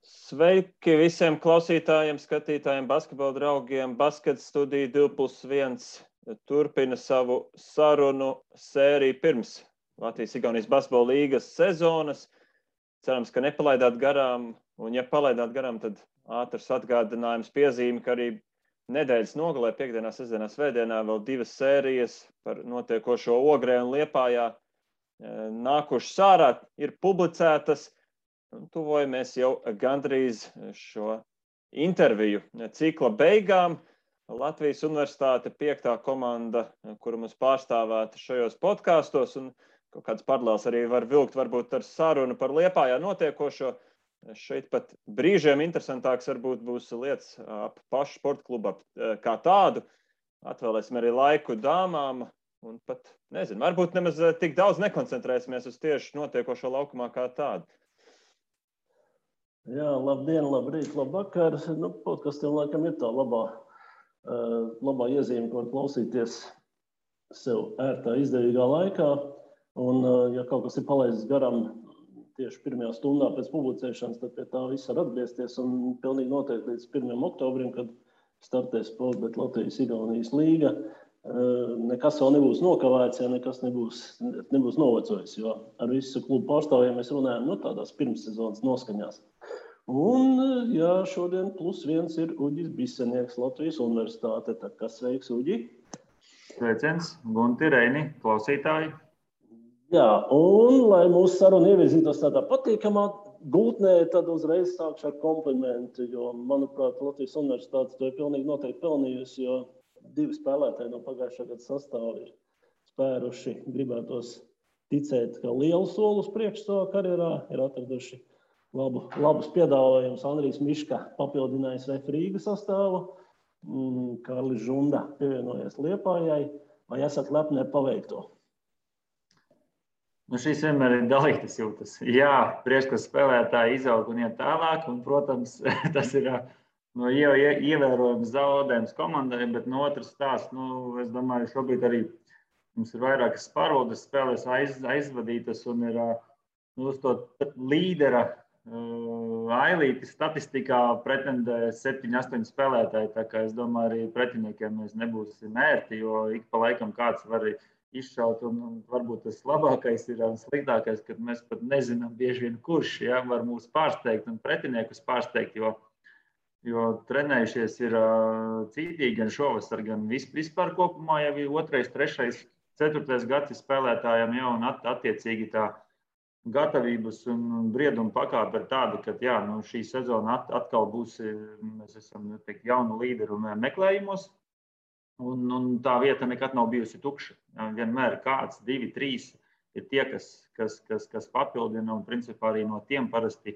Sveiki visiem klausītājiem, skatītājiem, basketbola draugiem. Basket studija 2+1 turpina savu sarunu sēriju pirms Latvijas-Igaunijas basketbola līgas sezonas. Cerams, ka nepalaidāt garām, un ja palaidāt garām, tad ātrs atgādinājums piezīme, ka arī nedēļas nogalē, piekdienā, sestdienā, svētdienā vēl 2 sērijas par notiekošo Ogrē un Liepājā nākušas ārā, ir publicētas. Tuvojamies jau gandrīz šo interviju cikla beigām. Latvijas Universitāte 5. komanda, kura mums pārstāvēta šajos podkastos, un kaut kāds paralēls arī var vilkt varbūt ar sarunu par Liepājā notiekošo. Šeit pat brīžiem interesantāks varbūt būs lietas ap pašu sporta klubu kā tādu. Atvēlēsim arī laiku dāmām, un pat, nezinu, varbūt nemaz tik daudz nekoncentrēsimies uz tieši notiekošo laukumā kā tādu. Jā, labdien, labrīt, labvakar. Podkastiem laikam ir tā labā iezīme, ko klausīties sev ērtā, izdevīgā laikā. Un, ja kaut kas ir palaists garām tieši pirmajā stundā pēc publicēšanas, tad pie tā viss var atgriezties. Un pilnīgi noteikti līdz 1. oktobrim, kad startēs Sportbet Latvijas-Igaunijas līga, nekas vēl nebūs nokavēts, ja nekas nebūs novecojis, jo ar visu klubu pārstāvjiem mēs runājam tādās pirmssezonas noskaņās. Un, jā, šodien +1 ir Uģis Bisenieks, Latvijas Universitāte. Tā kā sveiks, Uģi! Sveiciens, Gunti, Reini, klausītāji! Jā, un, lai mūsu saruna ievirzītos tādā patīkamā gultnē, tad uzreiz sākšu ar komplimentu, jo, manuprāt, Latvijas Universitāte to ir pilnīgi noteikti pelnījusi, jo 2 spēlētāji no pagājušā gada sastāva ir spēruši, gribētos ticēt, ka lielu soli uz priekšu savā karjerā ir atraduši labus piedāvājumus. Andrijs Miška papildinājis VF Rīgas sastāvu, Kārlis Žunda pievienojies Liepājai. Vai esat lepni ar paveikto? Šīs vienmēr ir dalītas jūtas. Jā, prieks, ka spēlētāji izaug un iet tālāk, un, protams, tas ir ievērojams zaudējums komandai, bet no otras stāsts, es domāju, šobrīd arī mums ir vairākas pārvaldes spēlēs aizvadītas un ir uz to līdera ailīti statistikā pretendē 7-8 spēlētāji, tā kā es domāju, arī pretiniekiem mēs nebūsim ērti, jo ik pa laikam kāds var izšaut, un varbūt tas labākais ir un sliktākais, kad mēs pat nezinām bieži vien kurš, var mūs pārsteigt un pretiniekus pārsteigt, jo trenējušies ir cītīgi gan šovasar, gan vispār kopumā jau ir 2., 3., 4. gads spēlētājiem jau un attiecīgi tā gatavības un brieduma pakāpe ir tāda, ka šī sezona atkal būs, mēs esam jaunu līderu meklējumos, un tā vieta nekad nav bijusi tukša. Vienmēr kāds, 2, 3 ir tie, kas papildina, un principā arī no tiem parasti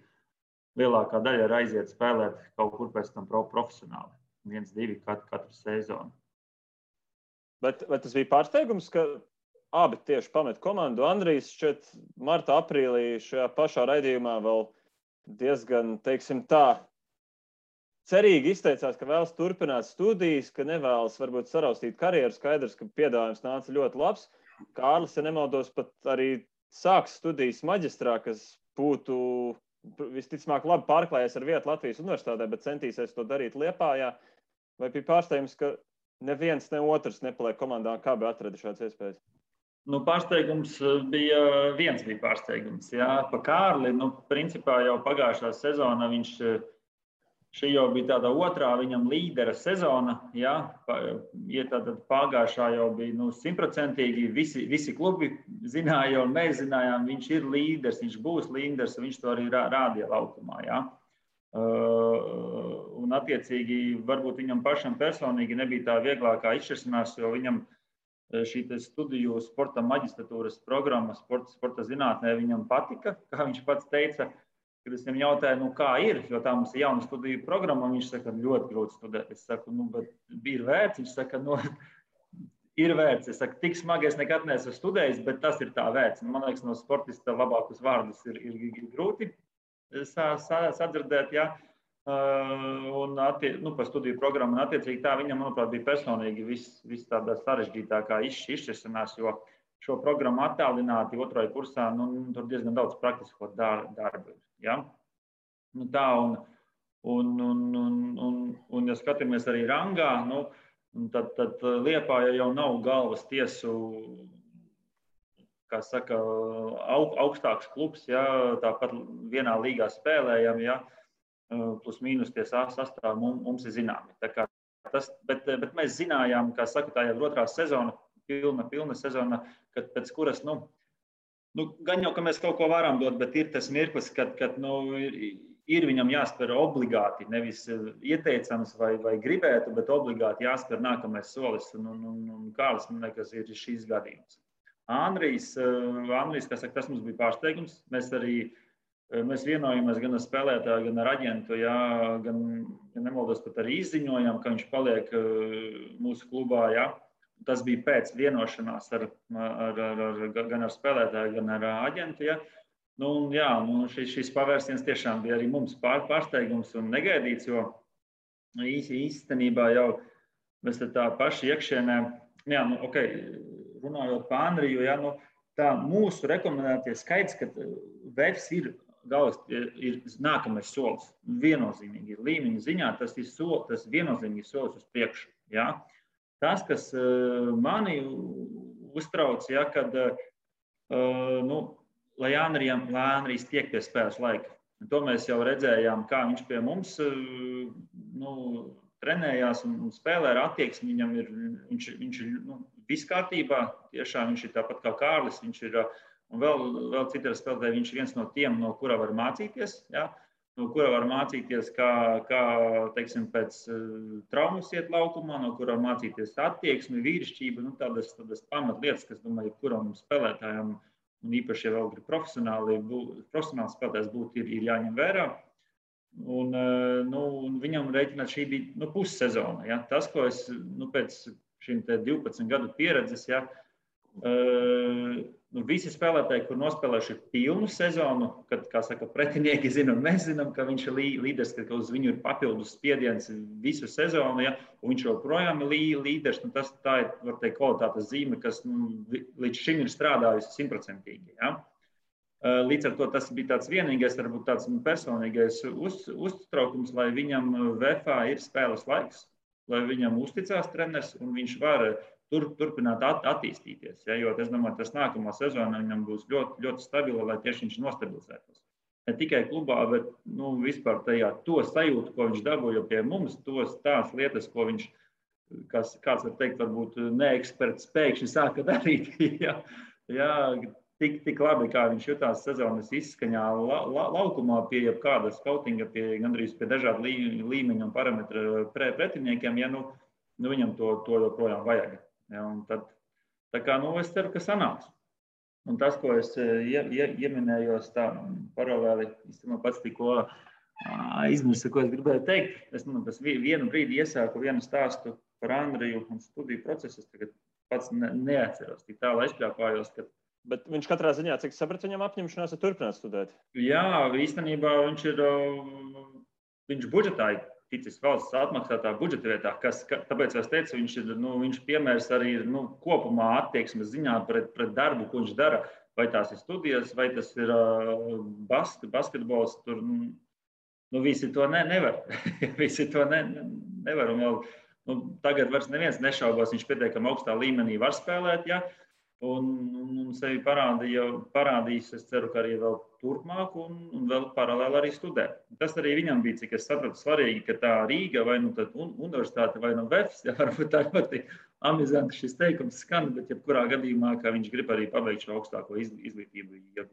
lielākā daļa ir aiziet spēlēt kaut kur pēc tam profesionāli. 1, 2 katru sezonu. Bet tas bija pārsteigums, ka abi tieši pamet komandu. Andrijs šķiet marta, aprīlī šajā pašā raidījumā vēl diezgan, teiksim tā, cerīgi izteicās, ka vēlas turpināt studijas, ka nevēlas varbūt saraustīt karjeru. Skaidrs, ka piedāvājums nāca ļoti labs. Kārlis, ja nemaldos, pat arī sāks studijas maģistrā, kas būtu visticamāk labi pārklājies ar vietu Latvijas Universitātē, bet centīsies to darīt Liepājā. Vai bija pārsteigums, ka neviens, ne otrs nepaliek komandā, kā bija atrada šāds iespējas? Pārsteigums bija pārsteigums. Jā, pa Kārli, principā jau pagājušā sezona viņš šī jau bija tāda otrā viņam līdera sezona. Jā, tātad pagājušā jau bija 100%, visi klubi zināja un mēs zinājām, viņš ir līderis, viņš būs līderis, viņš to arī rādīja laukumā. Jā. Un attiecīgi varbūt viņam pašam personīgi nebija tā vieglākā izšķiršanās, jo viņam šī studiju sporta maģistratūras programma sporta zinātnē viņam patika, kā viņš pats teica, kad es viņam jautāju, kā ir, jo tā mums ir jauna studiju programma, un viņš saka, ļoti grūti studēt. Es saku, bet ir vērts, viņš saka, ir vērts. Es saku, tik smagi es nekad neesmu studējis, bet tas ir tā vērts. Man liekas, no sportista labākus vārdus ir grūti sadzirdēt, jā. Un par studiju programmu, un attiecīgi tā viņam, manuprāt, bija personīgi viss tādā sarežģītākā izšķiršanās, jo šo programmu attālināti 2. kursā, tur diezgan daudz praktisko darbu ir. Ja? Nu, tā, un ja skatāmies arī rangā, tad Liepāja jau nav galvas tiesu, kā saka, augstāks klubs, ja, tāpat vienā līgā spēlējam, ja, plus mīnus tie sastāvi mums ir zināmi. Bet mēs zinājām, kā saka, tā jau ir otrā sezona, pilna sezona, kad pēc kuras, gan jau, ka mēs kaut ko varam dot, bet ir tas mirklis, kad ir viņam jāspēr obligāti, nevis ieteicams vai gribētu, bet obligāti jāspēr nākamais solis. Un Kārlis, man liekas, ir šīs gadījums. Andrijs, kā saka, tas mums bija pārsteigums. Mēs vienojamies gan ar spēlētāju, gan ar aģentu, jā, gan nemaldos, pat arī izziņojām, ka viņš paliek mūsu klubā. Jā. Tas bija pēc vienošanās gan ar spēlētāju, gan ar aģentu. Jā. Šis pavērsiens tiešām bija arī mums pārsteigums un negaidīts, jo īstenībā jau mēs tā paši iekšienē, runājot par Andriju, tā mūsu rekomendētie skaits, ka VEFs ir nākamais solis. Viennozīmīgi līmeņa ziņā tas viennozīmīgi solis uz priekšu. Ja? Tas, kas mani uztrauc, ja, kad lai Andrijs tiek pie spēles laika. To mēs jau redzējām, kā viņš pie mums trenējās un spēlē ar attieksmi. Viņš ir viss kārtībā, tiešām viņš ir tāpat kā Kārlis, viņš ir, un vēl citi spēlētāji, viņš ir viens no tiem, no kura var mācīties, ja? No kura var mācīties, kā teiksim, pēc traumas iet laukumā, no kura var mācīties attieksmi, vīrišķība, tādas pamatlietas, kas, domāju, kuram spēlētājam un īpaši, ja vēl grib profesionāls spēlētājs būt, ir jāņem vērā. Un viņam rēķināt šī bija pussezona. Ja? Tas, ko es pēc šīm 12 gadu pieredzes, ja, visi spēlētāji, kur nospēlējuši pilnu sezonu, kad, kā saka, pretinieki zina un mēs zinām, ka viņš ir līderis, ka uz viņu ir papildus spiediens visu sezonu, ja, un viņš joprojām ir līderis, tā ir, var teikt, kvalitātes zīme, kas līdz šim ir strādājusi 100%. Ja. Līdz ar to tas bija tāds vienīgais, varbūt tāds personīgais uztraukums, lai viņam VFA ir spēles laiks, lai viņam uzticās treneris un viņš var turpināt attīstīties. Ja, jo es domāju, tas nākamā sezona viņam būs ļoti, ļoti stabila, lai tieši viņš nostabilizētos. Ne tikai klubā, bet vispār tajā to sajūtu, ko viņš dabūja pie mums, tās lietas, ko viņš, kāds var teikt, varbūt neeksperts pēkšņi sāka darīt. Ja, tik labi, kā viņš jutās sezonas izskaņā laukumā pie jebkāda skautinga, gandrīz pie dažādu līmeņu un parametru pretiniekiem, ja viņam to joprojām vajag. Ja, un tad, es ceru, ka sanāks. Un tas, ko es ieminējos tā paralēli, īstenībā pats tikko izmirsu, ko es gribēju teikt. Es vienu brīdi iesāku vienu stāstu par Andriju un studiju procesu. Es tagad pats neatceros, tik tālu aizpļāpājos, ka... Bet viņš katrā ziņā, cik sapratu, viņam apņemšanās ir turpināt studēt? Jā, īstenībā viņš budžetā ticis valsts atmaksātā budžeta vietā, tāpēc es teicu, viņš piemērs arī ir kopumā attieksmes ziņā pret darbu, ko viņš dara, vai tās ir studijas, vai tas ir basketbols, tur visi to nevar. Visi to nevar. Un vēl, tagad vairs neviens nešaubās, viņš pietiekami augstā līmenī var spēlēt, ja? Un sevi parādīs, es ceru, ka arī vēl turpmāk un vēl paralēli arī studē. Tas arī viņam bija, cik es sapratu, svarīgi, ka tā Rīga vai tad universitāte vai VEFs, ja varbūt tā ļoti amizanti šis teikums skan, bet jebkurā gadījumā, ka viņš grib arī pabeigt šo augstāko izglītību.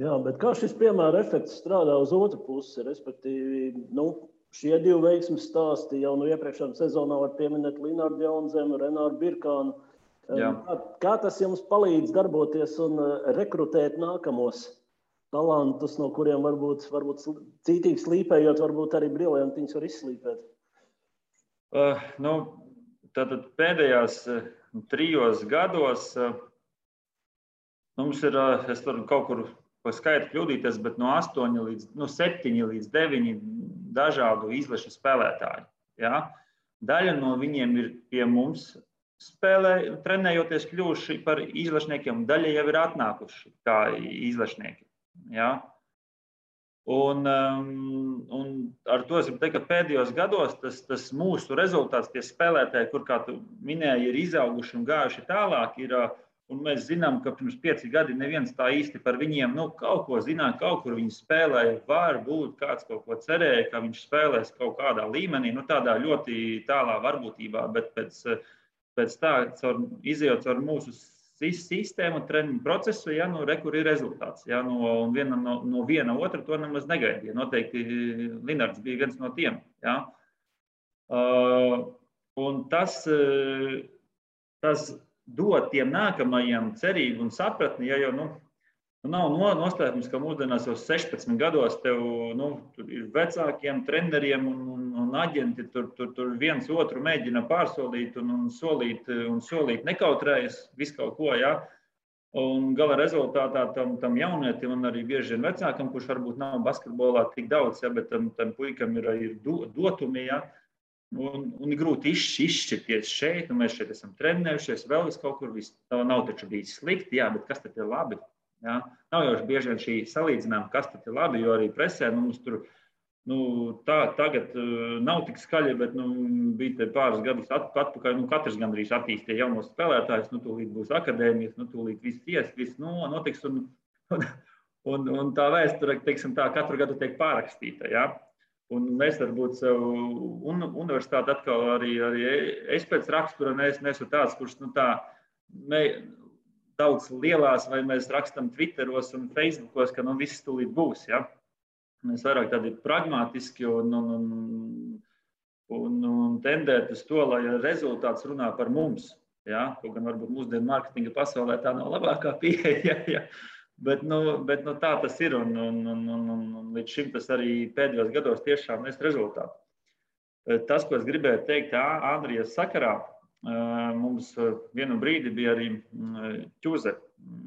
Jā, bet kā šis piemēra efekts strādā uz otru pusi, respektīvi, šie divi veiksmes stāsti jau iepriekšējā sezonā var pieminēt Linārdu Jaunzemu, Renāru Birkānu. Jā. Kā tas jums palīdz darboties un rekrutēt nākamos talantus, no kuriem varbūt cītīgi slīpējot, varbūt arī briljantiņus var izslīpēt? Tātad pēdējās 3 gados mums ir, es varu kaut kur pa skaitu kļūdīties, bet no 7 līdz 9 dažādu izlašu spēlētāju. Ja? Daļa no viņiem ir pie mums trenējoties kļuvuši par izlašniekiem, daļa jau ir atnākuši kā izlašnieki. Ja? Un ar to es gribu teikt, ka pēdējos gados tas mūsu rezultāts, tie spēlētāji, kur, kā tu minēji, ir izauguši un gājuši tālāk, un mēs zinām, ka pirms 5 gadi neviens tā īsti par viņiem kaut ko zināja, kaut kur viņi spēlēja, varbūt kāds kaut ko cerēja, ka viņš spēlēs kaut kādā līmenī, tādā ļoti tālā varbūtībā, bet pēc tā, izejot caur mūsu sistēmu, treniņu procesu, kur ir rezultāts. Un no viena otra to nemaz negaidīja. Noteikti Linards bija viens no tiem. Un tas dod tiem nākamajiem cerību un sapratni, jau nav noslēpums, ka mūsdienās jau 16 gados tev tur ir vecākiem treneriem un aģenti, tur viens otru mēģina pārsolīt un solīt nekautrējas visu kaut ko, Un gala rezultātā tam jaunietim un arī bieži vien vecākam, kurš varbūt nav basketbolā tik daudz, bet tam puikam ir dotumi, un ir grūti izšķirties šeit, un mēs šeit esam trenējušies, vēl vis kaut kur, nav taču bijis slikti, bet kas tad ir labi? Nav jau bieži vien šī salīdzinājuma, kas tad ir labi, jo arī presē mums tur tagad nav tik skaļi, bet bija te pāris gadus atpakaļ, katrs gandrīz attīstīja jaunos spēlētājus, tūlīt būs akadēmijas, tūlīt viss notiks, un tā vēsture, teiksim tā, katru gadu tiek pārrakstīta, Un mēs varbūt sev universitāti atkal arī es pēc rakstura neesmu tāds, kurš daudz lielās, vai mēs rakstam Twitteros un Facebookos, ka viss tūlīt būs, Mēs vairāk tādi pragmatiski un tendēt uz to, lai rezultāts runā par mums. Kaut gan varbūt mūsdienu mārketinga pasaulē tā nav labākā pieeja, bet tā tas ir. Un līdz šim tas arī pēdējos gados tiešām nes rezultātu. Tas, ko es gribēju teikt Andrijas sakarā, mums vienu brīdi bija arī ķuze.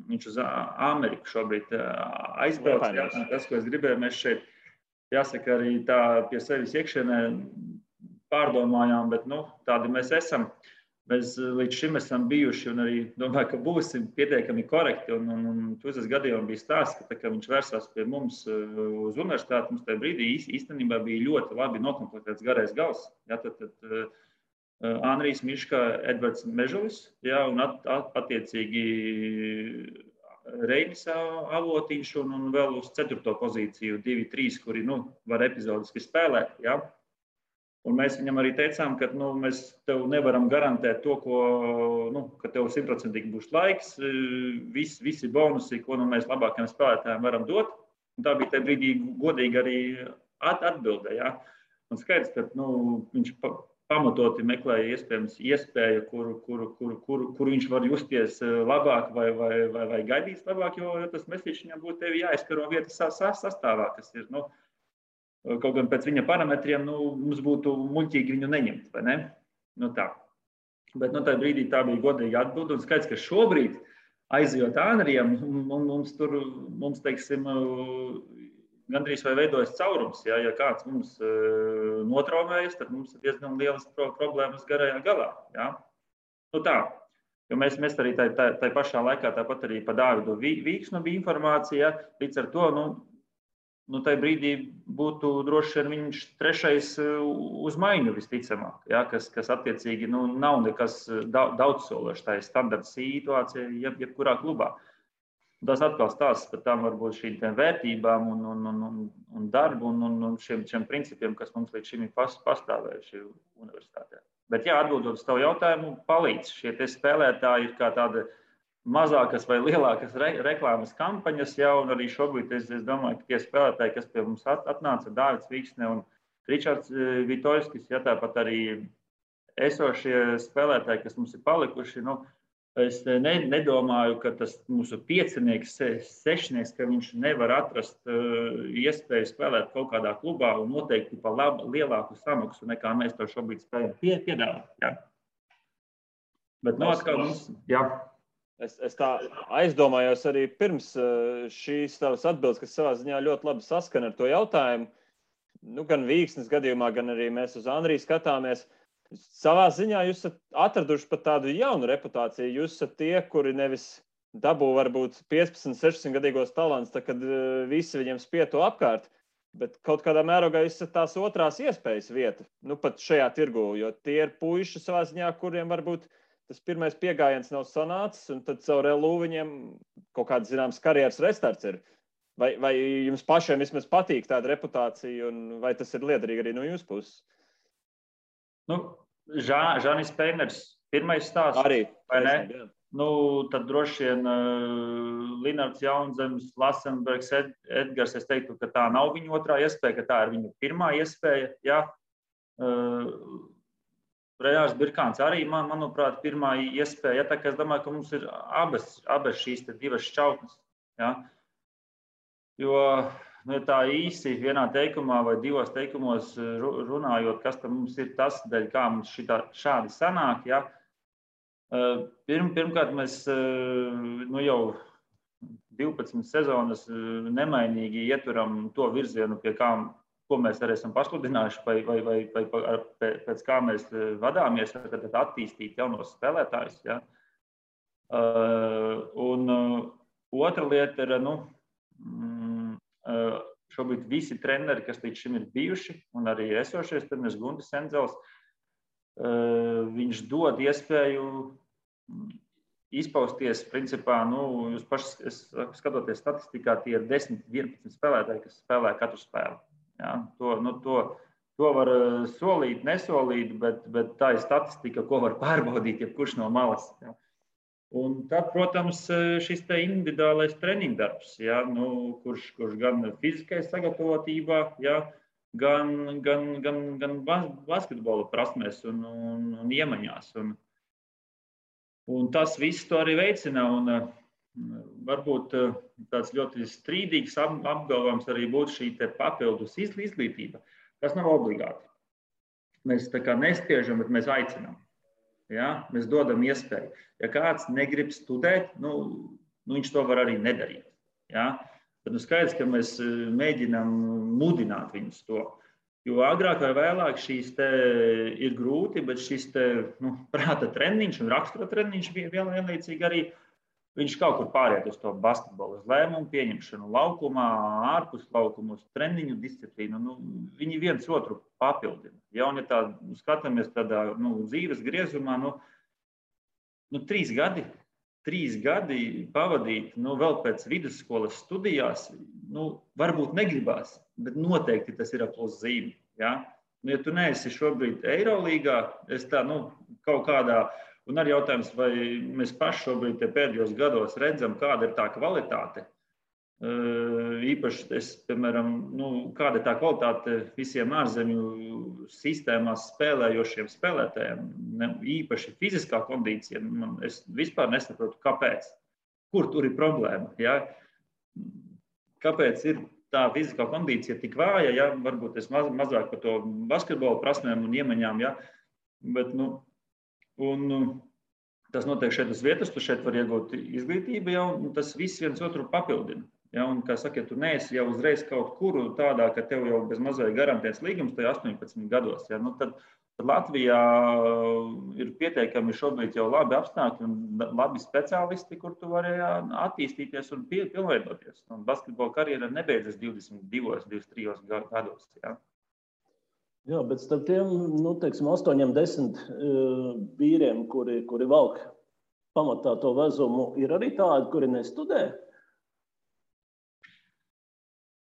Viņš uz Ameriku šobrīd aizbrauc. Tas, ko es gribēju, mēs šeit, jāsaka, arī tā pie sevis iekšienē pārdomājām, bet tādi mēs esam. Mēs līdz šim esam bijuši un arī domāju, ka būsim pietiekami korekti. Un ķuzes gadījumā bija stāsts, ka viņš vērsās pie mums uz universitāti. Mums tajā brīdī īstenībā bija ļoti labi nokomplektēts garais gals. Andrijs Miška, Edvards Mežulis, un attiecīgi Reinis Avotiņš un vēl uz 4. pozīciju 2-3, kuri var epizodiski spēlēt. Un mēs viņam arī teicām, ka mēs tev nevaram garantēt to, ka tev 100% būs laiks, visi bonusi, ko mēs labākajiem spēlētājiem varam dot. Un tā bija tajā brīdī godīgi arī atbilde. Un skaidrs, ka viņš pamatoti meklēja iespēju, kuru viņš var justies labāk vai gaidīs labāk, jo tas mesiķis viņam būtu tevi jāizkaro vietas sastāvā, kas ir, kaut gan pēc viņa parametriem, mums būtu muļķīgi viņu neņemt, vai ne? Tā. Bet tajā brīdī tā bija godīga atbilde, un skaidrs, ka šobrīd aizejot Andrijam, mums teiksim, gandrīz vai veidojas caurums. Ja kāds mums notraumējas, tad mums ir diezgan lielas problēmas garajā galā. Tā. Jo mēs arī tai pašā laikā tāpat arī pa Dāvidu Vīksnu bija informācija. Līdz ar to, tajā brīdī būtu droši vien viņš 3. uz maiņu visticamāk, kas attiecīgi nav nekas daudzsološs. Tā ir standarta situācija jebkurā klubā. Tas atkal stāsts par tām varbūt šīm vērtībām un darbu un šiem principiem, kas mums līdz šim ir pastāvējuši universitātē. Bet atbildot uz tavu jautājumu, palīdz. Šie spēlētāji ir kā tāda mazākas vai lielākas reklāmas kampaņas, un arī šobrīd es domāju, ka tie spēlētāji, kas pie mums atnāca, Dāvids Vīksne un Ričards Vitoļskis, tāpat arī esošie spēlētāji, kas mums ir palikuši, es nedomāju, ka tas mūsu 5-nieks, 6-nieks, ka viņš nevar atrast iespēju spēlēt kaut kādā klubā un noteikti pa lielāku samaksu, nekā mēs to šobrīd spējam piedāvāt. Bet atkal mums, Es tā aizdomājos arī pirms šīs tavas atbildes, kas savā ziņā ļoti labi saskana ar to jautājumu. Gan Vīksnes gadījumā, gan arī mēs uz Andriju skatāmies. Savā ziņā jūs esat atraduši pat tādu jaunu reputāciju. Jūs esat tie, kuri nevis dabū varbūt 15, 16 gadīgos talants, tad, kad visi viņiem spieto apkārt, Bet kaut kādā mērogā esat tās otrās iespējas vieta, nu pat šajā tirgu, jo tie ir puiši savā ziņā, kuriem varbūt tas pirmais piegājiens nav sanācis, un tad caur LU viņiem kaut kāds zināms karjeras restarts ir. Vai jums pašiem vismaz patīk tāda reputācija, un vai tas ir liederīgi arī no jūsu puses? Nu, Žanis Peiners, pirmais stāsts. Arī, vai ne? Jā. Nu, tad droši vien Linards Jaunzems, Lasenbergs, Edgars, es teiktu, ka tā nav viņa otrā iespēja, ka tā ir viņa pirmā iespēja. Ja? Rejārs Birkāns arī, manuprāt, pirmā iespēja. Ja? Tā kā es domāju, ka mums ir abas šīs divas šķautnes. Ja? Jo nu, tā īsi vienā teikumā vai divos teikumos runājot, kas tam mums ir tas, dēļ kā mums šādi sanāk, ja? Pirmkārt, mēs nu, jau 12 sezonas nemainīgi ieturam to virzienu, pie kā, ko mēs arī esam pasludinājuši, vai pēc kā mēs vadāmies, tad attīstīt jaunos spēlētājus. Ja? Un otra lieta ir, nu, šobrīd visi treneri, kas līdz šim ir bijuši, un arī esošais treneris Guntis Endzels, viņš dod iespēju izpausties, principā, nu, jūs paši skatoties statistikā, tie ir 10-11 spēlētāji, kas spēlē katru spēli. Ja? To var solīt, nesolīt, bet tā ir statistika, ko var pārbaudīt jebkurš no malas. Ja? Un tad, protams, šis te individuālais treniņdarbs, ja? Nu, kurš gan fiziskajā sagatavotībā, ja? gan basketbola prasmēs un iemaņās. Un tas viss to arī veicina. Un varbūt tāds ļoti strīdīgs apgalvojums arī būtu šī te papildus izglītība, kas nav obligāti. Mēs tā kā nespiežam, bet mēs aicinām. Ja? Mēs dodam iespēju. Ja kāds negrib studēt, nu, viņš to var arī nedarīt. Ja? Tad nu skaidrs, ka mēs mēģinām mudināt viņus to. Jo agrāk vai vēlāk šīs te ir grūti, bet šis te, nu, prāta treniņš un rakstura treniņš vienlaicīgi arī viņš kaut kur pāriet uz to basketbolu, uz lēmumu pieņemšanu laukumā, ārpus laukumu, uz treniņu disciplīnu. Nu, viņi viens otru papildina. Ja, un ja tā skatāmies tādā dzīves griezumā, 3 gadi. 3 gadi pavadīt, vēl pēc vidusskolas studijās, varbūt negribās, bet noteikti tas ir plus zīme. Ja? Ja tu neesi šobrīd Eirolīgā, es tā, kaut kādā, un arī jautājums, vai mēs paši šobrīd pēdējos gados redzam, kāda ir tā kvalitāte. Īpaši, piemēram, kāda ir tā kvalitāte visiem ārzemju sistēmās spēlējošiem spēlētājiem, īpaši fiziskā kondīcija. Es vispār nesaprotu, kāpēc. Kur tur ir problēma? Ja? Kāpēc ir tā fiziskā kondīcija tik vāja? Ja? Varbūt es mazāk par to basketbola prasmēm un iemaņām, ja? Bet, tas notiek šeit uz vietas, tu šeit var iegūt izglītību, ja? Un tas viss viens otru papildina. Ja, un, kā saka, ja tu neesi jau uzreiz kaut kur tādā, ka tev jau bez mazai garantēts līgums, tai 18 gados. Ja, tad Latvijā ir pieteikami šobrīd jau labi apstākļi un labi speciālisti, kur tu vari attīstīties un pilnveidoties. Un basketbola karjera nebeidzas 22, 23 gados. Ja. Jā, bet starp tiem, 8-10 vīriem, kuri valk pamatā to vezumu, ir arī tādi, kuri nestudē?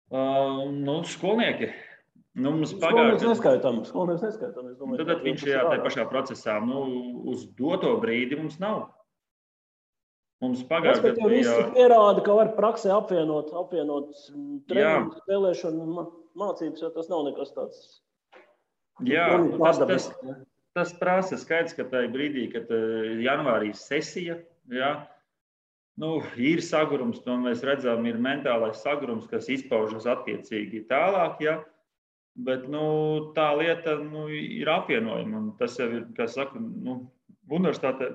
Skolnieki. Skolnieks neskaitām. Tad viņš ir tajā pašā procesā. Uz doto brīdi mums nav. Mums pagājušajā gadā visi pierāda, ka var praksē apvienot treniņu, spēlēšanu un mācības, jo tas nav nekas tāds. Jā, tas prasa skaidrs, ka tajā brīdī, kad janvārī sesija, jā, ir sagurums, to mēs redzam, ir mentālais sagurums, kas izpaužas attiecīgi tālāk, ja? Bet tā lieta ir apvienojama. Un tas jau ir, kā saka, universitāte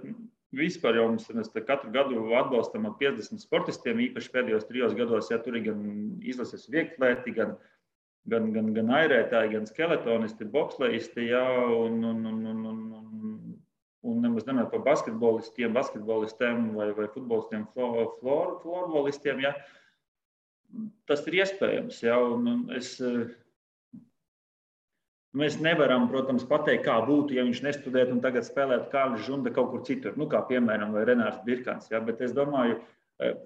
vispār jau mēs katru gadu atbalstam ar 50 sportistiem, īpaši pēdējos 3 gados, ja tur ir gan izlases vieglēti, gan airētāji, gan skeletonisti, boksleisti, ja? Un nemaz nenāk par basketbolistiem vai futbolistiem, florbolistiem. Ja? tas ir iespējams. Ja, mēs nevaram, protams, pateikt, kā būtu, ja viņš nestudētu un tagad spēlētu Kārlis Žunda kaut kur citur, kā piemēram vai Renārs Birkans. Ja, bet es domāju,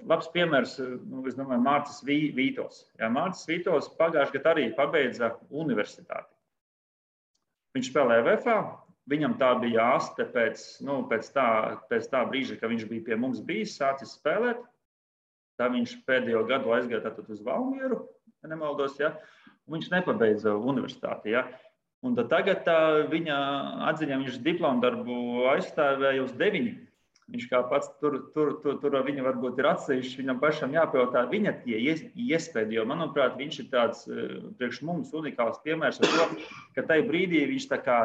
labs piemērs, es domāju, Mārcis Vītols. Ja, Mārcis Vītols pagājušajā gadā arī pabeidza universitāti. Viņš spēlēja VFA, viņam tā bija aste pēc tā brīža, kad viņš bija pie mums sācis spēlēt. Tā viņš pēdējo gadu aizgāja tātad uz Valmieru, ja nemaldos, ja, un viņš nepabeidza universitāti. Ja. Un tagad viņa atziņā viņš diplomu darbu aizstāvēja uz 9. Viņš kā pats tur viņa varbūt ir atsevišķi, viņam pašam jāpajautā viņa tie iespēdi, jo, manuprāt, viņš ir tāds priekš mums unikāls piemērs ar to, ka tajā brīdī viņš tā kā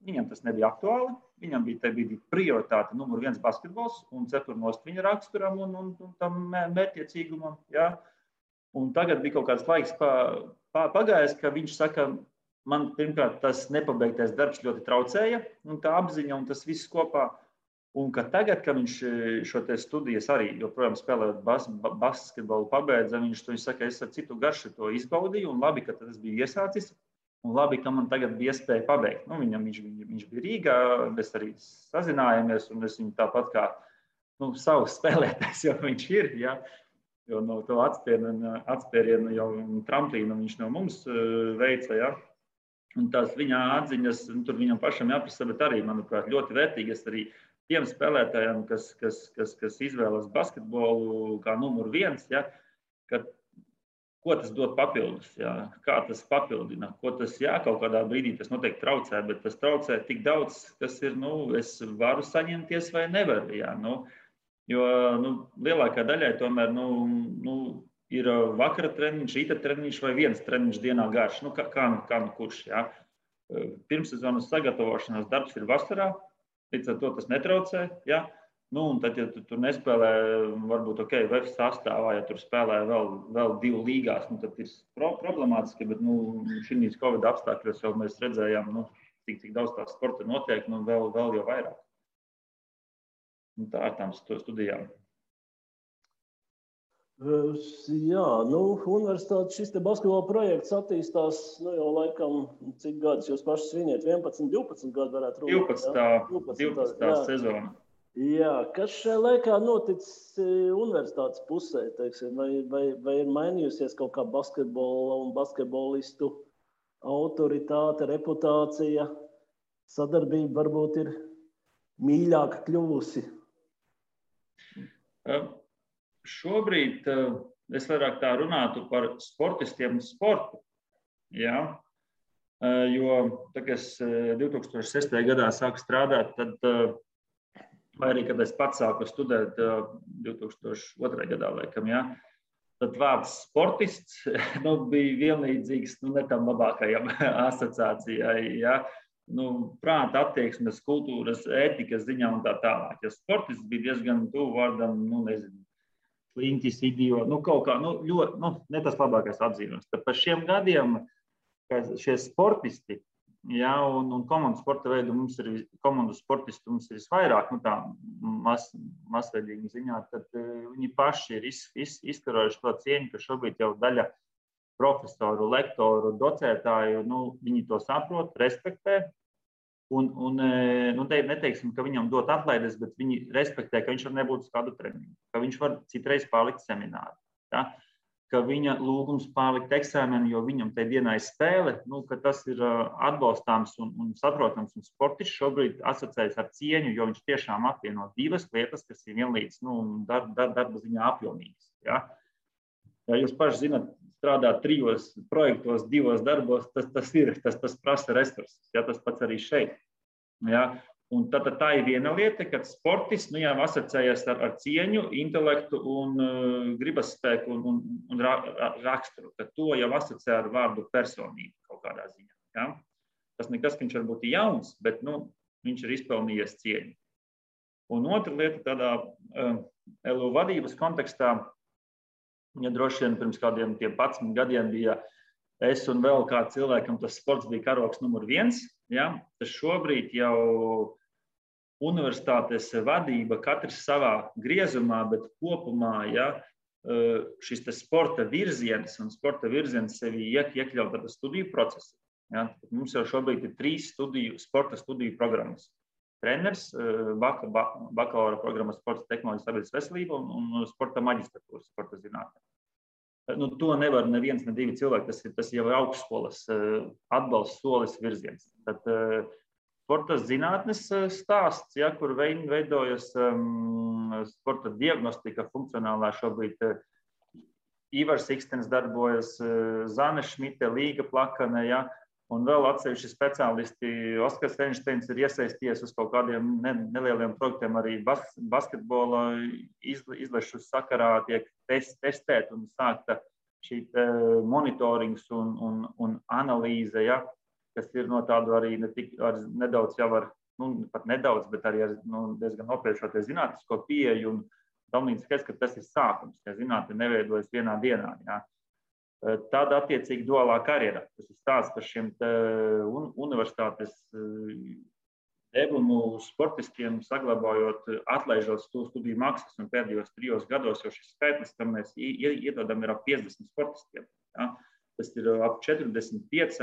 viņam tas nebija aktuāli, viņam bija tajā brīdī prioritāte numur 1 basketbols un cepurnost viņa raksturam un tam mērķiecīgumam. Ja. Un tagad bija kaut kāds laiks pagājis, ka viņš saka, man pirmkārt tas nepabeigtais darbs ļoti traucēja, un tā apziņa un tas viss kopā. Un ka tagad, kad viņš šo te studijas arī joprojām spēlējot basketbolu pabeidza, viņš saka, es ar citu garšu to izbaudīju, un labi, ka tas bija iesācis, un labi, ka man tagad bija iespēja pabeigt. Viņš bija Rīgā, mēs arī sazinājāmies, un es viņu tāpat kā savs spēlētājs jau viņš ir, ja, jo no to atspērienu jau tramplīnu viņš no mums veica, ja. Un tās viņa atziņas, tur viņam pašam jāprasa, bet arī, manuprāt, ļoti vērtīgas arī tiem spēlētājiem, kas izvēlas basketbolu kā numur 1, ja, ko tas dod papildus, ja, kā tas papildina, ko tas, jā, kaut kādā brīdī tas noteikti traucē, bet tas traucē tik daudz, kas ir, es varu saņemties vai nevaru, ja, jo lielākā daļai tomēr, ir vakara treniņš, rīta treniņš vai viens treniņš dienā garš, kā kurš, ja. Pirmssezonas sagatavošanās darbs ir vasarā, līdz ar to tas netraucē, ja. Un tad, ja tu tur nespēlē, varbūt, VF sastāvā, ja tur spēlē vēl 2 līgās, tad ir problemātiski, bet, šīs Covid apstākļos jau mēs redzējām, cik daudz tā sporta notiek, vēl jau vairāk. Un tā ar tām studijām. Jā, universitāte šis te basketbola projekts attīstās, jau laikam, cik gadus jūs paši sviniet, 11, 12 gadu varētu runāt. 12. sezona. Jā, kas šajā laikā noticis universitātes pusē, teiksim, vai ir mainījusies kaut kā basketbola un basketbolistu autoritāte, reputācija, sadarbība varbūt ir mīļāka kļuvusi? Šobrīd es vairāk tā runātu par sportistiem un sportu, ja? Jo, kad es 2006. gadā sāku strādāt, tad, vai arī, kad es pats sāku studēt 2002. gadā, laikam, ja? Tad vārds sportists bija vienlīdzīgs ne tam labākajam asociācijai, ja? Prāta attieksmes, kultūras, ētikas ziņā un tā tālāk. Ja sportists bija diezgan tuvu vārdam, nezinu, sliņķis, idiots, kaut kā, ļoti, ne tas labākais atzīmes. Tad par šiem gadiem, šie sportisti, ja, un komandu sporta veidu komandu sportistu mums ir visvairāk, tā masveidīgi ziņā, tad viņi paši ir izkarojuši to cieņu, ka šobrīd jau daļa profesoru, lektoru, docētāju, viņi to saprot, respektē. Un neteiksim, ka viņam dot atlaides, bet viņi respektē, ka viņš var nebūt uz kādu treniņu, ka viņš var citreiz palikt semināru, ja? Ka viņa lūgums palikt eksāmenu, jo viņam tajā dienā ir spēle, ka tas ir atbalstāms un saprotams, un sportists šobrīd asociējas ar cieņu, jo viņš tiešām apvieno 2 lietas, kas ir vienlīdz darba ziņā apjomīgas. Ja? Ja jūs paši zināt, strādāt 3 projektos, 2 darbos, tas prasa resursus. Ja, tas pats arī šeit. Ja. Un tā ir viena lieta, kad sportists jau asociējas ar cieņu, intelektu un gribas spēku un raksturu. Tad to jau asociē ar vārdu personību kaut kādā ziņā. Ja. Tas nekas, ka viņš varbūt ir jauns, bet viņš ir izpelnījies cieņu. Un otra lieta tādā LU vadības kontekstā, ja droši vien pirms kādiem 11 gadiem bija es un vēl kāds cilvēkam, tas sports bija karogs numur 1, ja, tad šobrīd jau universitātes vadība katrs savā griezumā, bet kopumā, ja, šis sporta virziens un sporta virziens sevi iekļaut tāda studiju procesa. Ja? Mums jau šobrīd ir 3 sporta studiju programmas. Treneris, bakalaura programma sporta tehnoloģijas sabiedrības veselība un sporta maģistratūra sporta zinātne. To nevar neviens, ne 2 cilvēki. Tas jau ir augstskolas atbalsts solis virziens. Tad sporta zinātnes stāsts, ja, kur veidojas sporta diagnostika funkcionālā šobrīd. Ivars Ikstens darbojas, Zane Šmite, Līga Plakane, ja, un vēl atsevišķi speciālisti. Oskars Einsteins ir iesaisties uz kaut kādiem nelieliem projektiem, arī basketbola izlešu sakarā tiek testēt un sākta šī monitorings un analīze, ja, kas ir no tādu arī nedaudz jau ar, pat nedaudz, bet arī ar diezgan nopietnoties zinātnisko pieeju un tam līdz skaidrs, ka tas ir sākums, ja zinātne neveidojas vienā dienā. Ja. Tāda attiecīgi duālā karjera. Tas ir stāsts par šiem universitātes devumu sportistiem, saglabājot, atlaižot studiju maksas, un pēdējos 3 gados jau šis skaitlis, kam mēs iedodam, ir ap 50 sportistiem. Ja. Tas ir ap 45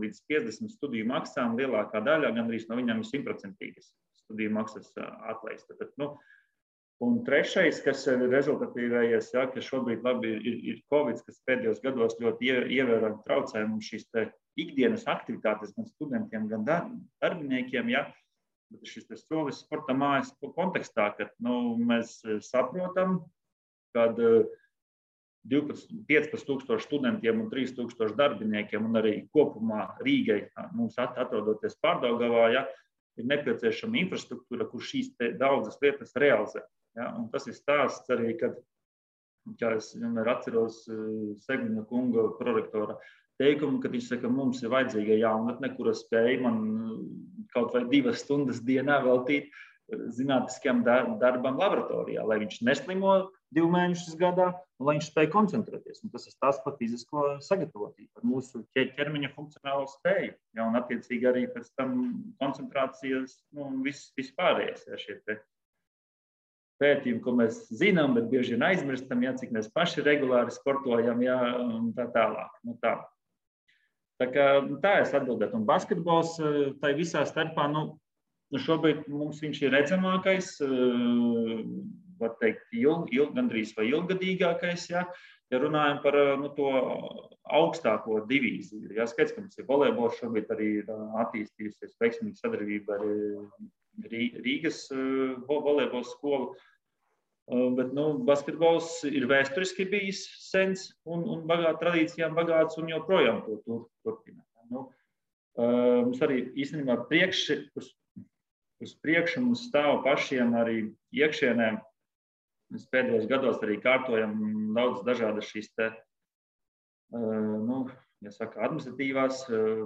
līdz 50 studiju maksām, lielākā daļa, gandrīz no viņām ir 100% studiju maksas atlaista. Un trešais, kas ir rezultatīvējais, ja, ka šobrīd labi ir Covid, kas pēdējos gados ļoti ievērojami traucē mums šīs ikdienas aktivitātes gan studentiem, gan darbiniekiem, ja, bet šis solis sporta mājas kontekstā, kad mēs saprotam, kad 15,000 studentiem un 3,000 darbiniekiem un arī kopumā Rīgai mums atrodoties Pārdaugavā, ja, ir nepieciešama infrastruktūra, kur šīs daudzas lietas realizē. Ja, un tas ir stāsts arī, kad, kā es vienmēr atceros Segmina kunga prorektora teikumu, kad viņš saka, mums ir vajadzīga jaunatne, kura spēja man kaut vai 2 stundas dienā veltīt zinātniskajam darbam laboratorijā, lai viņš neslimo 2 mēnešus gadā, un lai viņš spēja koncentrēties. Un tas ir stāsts par fizisko sagatavotību, par mūsu ķermeņa funkcionālo spēju. Ja, un attiecīgi arī pēc tam koncentrācijas, viss pārējais. Ja, šie pētījumi, ko mēs zinām, bet bieži vien aizmirstam, ja, cik mēs paši regulāri sportojam, ja, un tā tālāk. Tā es atbildētu. Un basketbols tai visā starpā, šobrīd mums viņš ir redzamākais, var teikt, gandrīz vai ilgadīgākais, ja runājam par to augstāko divīziju. Ja, skaidrs, ka mums ir volejbols, šobrīd arī ir attīstījusies veiksmīga sadarbība ar Rīgas volejbola skolu, bet basketbols ir vēsturiski bijis sens un tradīcijām bagāts un joprojām to turpina. Mums arī īstenībā uz priekšu mums stāv pašiem arī iekšienē. Mēs pēdējos gados arī kārtojam daudz dažādas šīs administratīvās,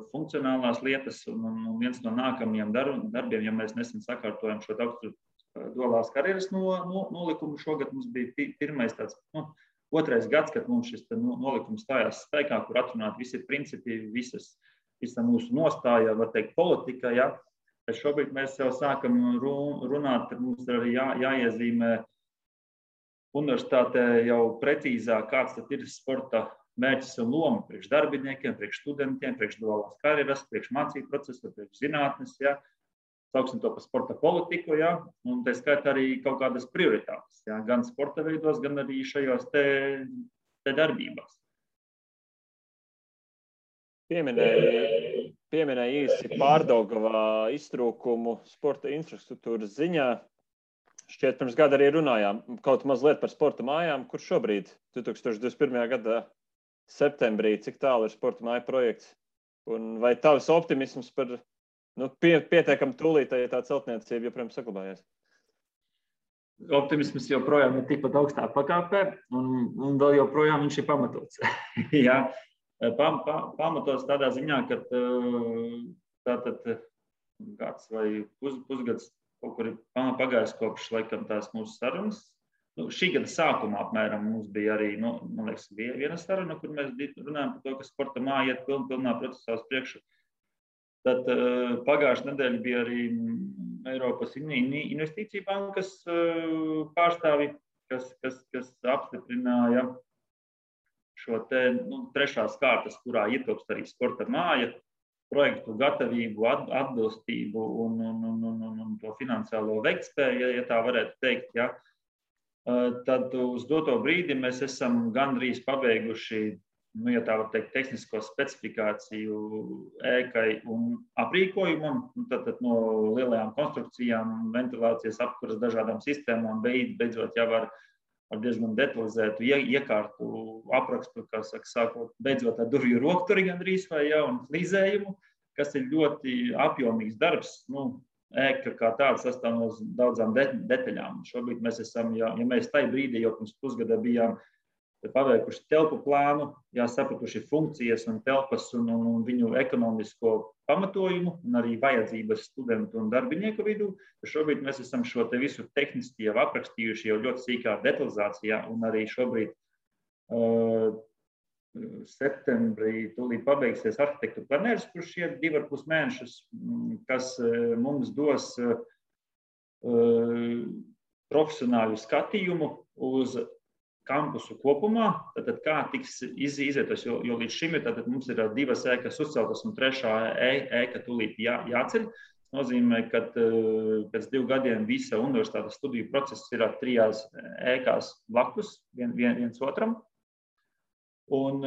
funkcionālās lietas, un viens no nākamajiem darbiem, ja mēs nesen sakārtojam šo duālās karjeras nolikumu, šogad mums bija pirmais tāds, 2. gads, kad mums šis nolikums stājās spēkā, kur atrunāt visi principi, visa mūsu nostāja, var teikt, politika, ja. Tad šobrīd mēs jau sākam runāt, ka mums arī jāiezīmē universitātē jau precīzāk, kāds tad ir sporta mērķis un loma priekš darbiniekiem, priekš studentiem, priekš duālās karjeras, priekš mācību procesu, priekš zinātnes, ja. Sauksim to par sporta politiku, ja, un tā skaitā arī kaut kādas prioritātes, ja, gan sporta veidos, gan arī šajos te darbībās. Pieminēja īsi Pārdaugavā iztrūkumu sporta infrastruktūras ziņā. Šķiet, pirms gada arī runājām kaut mazliet par sporta mājām, kur šobrīd 2021. gada septembrī, cik tālu ir sporta māja projekts, un vai tavs optimisms par pietiekami tūlītēji tā celtniecība joprojām saglabājies? Optimisms joprojām ir tikpat augstā pakāpē, un vēl joprojām viņš ir pamatots. Jā, pamatots tādā ziņā, ka tātad gads vai pusgads kaut kur ir pagājis kopš laikam tās mūsu sarunas. Šī gada sākumā apmēram mums bija arī, man liekas, viena saruna, kur mēs runājam par to, ka sporta māja iet pilnā procesā uz priekšu. Tad pagājušā nedēļa bija arī Eiropas investīciju bankas pārstāvi, kas apstiprināja šo te trešās kārtas, kurā ietilpst arī sporta māja, projektu gatavību, atbilstību un to finansiālo veiktspēju, ja tā varētu teikt. Ja. Tad uz doto brīdi mēs esam gandrīz pabeiguši, ja tā var teikt, tehnisko specifikāciju ēkai un aprīkojumam, tad no lielajām konstrukcijām, ventilācijas apkuras dažādām sistēmām, beidzot jau ar diezgan detalizētu iekārtu aprakstu, kā saka, sākot beidzot ar durvju rokturi gandrīz vai jau un flīzējumu, kas ir ļoti apjomīgs darbs. Ēka kā tāda sastāv no daudzām detaļām. Šobrīd mēs esam, ja mēs tajā brīdī jau pirms pusgada bijām paveikuši telpu plānu, sapratuši funkcijas un telpas un viņu ekonomisko pamatojumu un arī vajadzības studentu un darbinieku vidū. Šobrīd mēs esam šo te visu tehniski jau aprakstījuši jau ļoti sīkā detalizācijā un arī šobrīd septembrī tūlīt pabeigsies arhitektu planērs, kurš ir 2,5 mēnešus, kas mums dos profesionālu skatījumu uz kampusu kopumā, tad kā tiks izvietos, jo līdz šim mums ir 2 ēkas uzceltas un 3. ēka tūlīt jāceļ. Tas nozīmē, ka pēc 2 gadiem visa universitātes studiju process ir 3 ēkās blakus viens otram. Un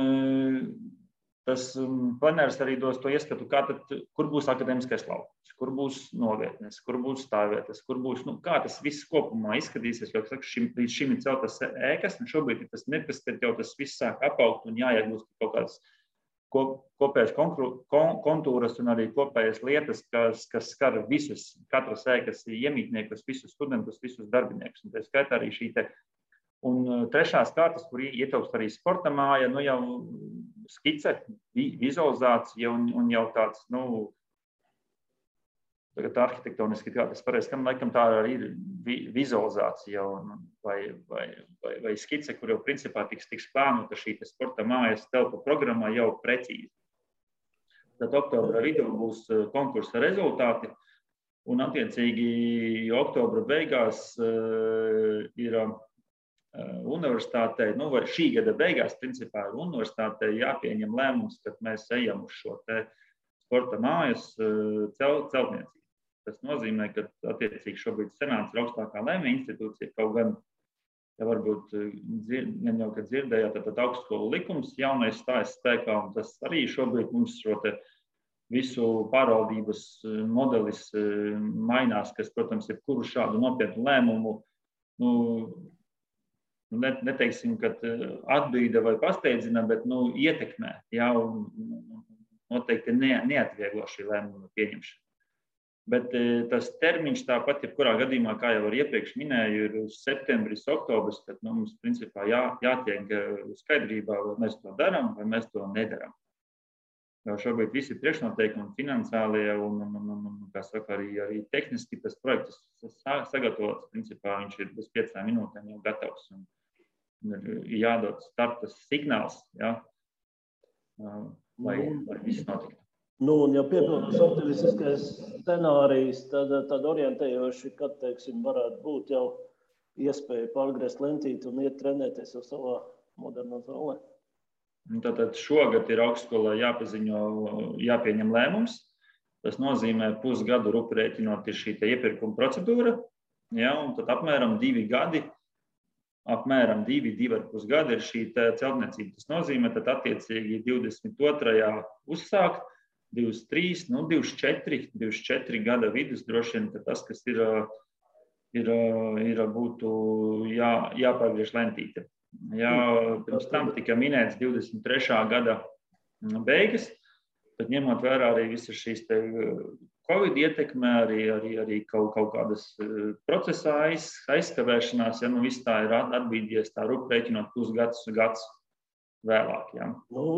tas planērs arī dos to ieskatu, kur būs akadēmiskais laukums, kur būs novietnes, kur būs stāvvietas, kur būs, kā tas viss kopumā izskatīsies, jo līdz šim ir celtas ēkas, un šobrīd ir tas mirklis, kad jau tas viss sāk apaugt un jāiegūst kaut kādas kopējas kontūras un arī kopējas lietas, kas skar visus, katras ēkas iemītniekus, visus studentus, visus darbiniekus. Un tā skaitā arī šī te. Un trešās kārtas, kur ietilpst arī sporta māja, jau skice, vizualizācija un jau tāds, tagad arhitektoniski, kā tas pareizi, laikam tā arī ir vizualizācija vai skice, kur jau principā tiks plānota šī sporta mājas telpu programma jau precīzi. Tad oktobra vidū būs konkursa rezultāti un attiecīgi oktobra beigās ir universitātei, vai šī gada beigās, principā, ir universitātei jāpieņem lēmums, kad mēs ejam uz šo te sporta mājas celtniecību. Tas nozīmē, ka attiecīgi šobrīd senāts ir augstākā lēmuma institūcija, kaut gan, ja varbūt jau, kad dzirdējāt, tad augstskolu likums jaunais stājas spēkā, un tas arī šobrīd mums šo te visu pārvaldības modelis mainās, kas, protams, ir kuru šādu nopietnu lēmumu, neteiksim, ka atbīda vai pasteidzina, bet ietekmē, un noteikti neatvieglo šī lēmuma pieņemšana. Bet tas termiņš tāpat, jebkurā gadījumā, kā jau iepriekš minēju, ir septembris, oktobris, tad mums principā jātiek skaidrībā, vai mēs to darām, vai mēs to nedaram. Jo šobrīd visi priekšnoteikumi finansiālie un kā saka, arī tehniski tas projekts sagatavots, principā viņš ir bez 5 minūtēm jau gatavs. Ir jādod starta signāls, lai viss notiktu. Un ja piepildās optimistiskais scenārijs, tad orientējoši, kad, teiksim, varētu būt jau iespēja pārgriezt lentīti un iet trenēties jau savā modernā zālē. Tātad šogad ir augstskolā jāpieņem lēmums. Tas nozīmē pusgadu rēķinot ir šī iepirkuma procedūra, un tad apmēram 2 gadi, apmēram 2,5 gadi ir šī celtniecība. Tas nozīmē, tad attiecīgi 22. uzsākt, 23, 24 gada vidus droši vien, ka tas, kas būtu jāpārgriež lentīte. Pirms tam tika minēts 23. gada beigas, bet ņemot vērā arī visas šīs Covid ietekmē, arī kaut kādas procesā aizskavēšanās, viss tā ir atbīdies tā rēķinot pusgads vēlāk.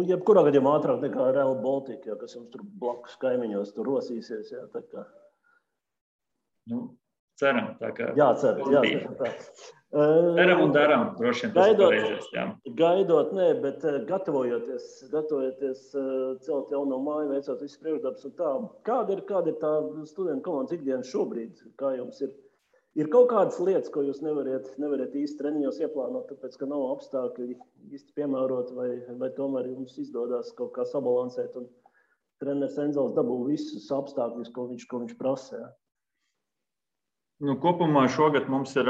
Jebkurā gadījumā ātrāk nekā Rail Baltica, kas jums tur blakus kaimiņos tur rosīsies. Tā kā. Ceram, tā kā. Jācer. Ceram un daram, droši vien tas pareizes. Gaidot, bet gatavojoties celt jauno māju, veicot visu priekšdarbus un tā. Kāda ir tā studentu komandas ikdiena šobrīd? Kā jums ir Ir kaut kādas lietas, ko jūs nevarat īsti treniņos ieplānot, tāpēc, ka nav apstākļi īsti piemērot, vai tomēr jums izdodas kaut kā sabalansēt, un treneris Enzels dabū visus apstākļus, ko viņš prasa. Ja? Kopumā šogad mums ir,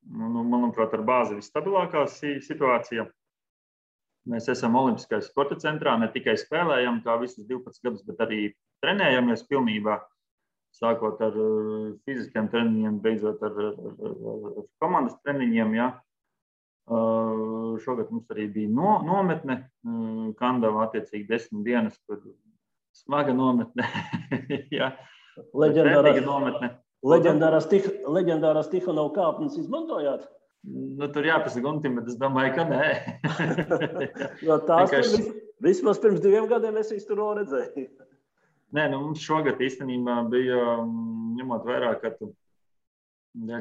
manuprāt, ar bāzi visstabilākā situācija. Mēs esam Olimpiskais sporta centrā, ne tikai spēlējam kā visus 12 gadus, bet arī trenējamies pilnībā. Sākot ar fiziskiem treniņiem, beidzot ar komandas treniņiem. Ja. Šogad mums arī bija nometne, Kandava attiecīgi 10 dienas, kur smaga nometne. Ja. Leģendārās Tihanova kāpnes izmantojāt? Tur jāpasaka Guntim, bet es domāju, ka nē. Jo tās vismaz pirms 2 gadiem es viņus tur redzēju. Nē, mums šogad īstenībā bija, ņemot vērā, ka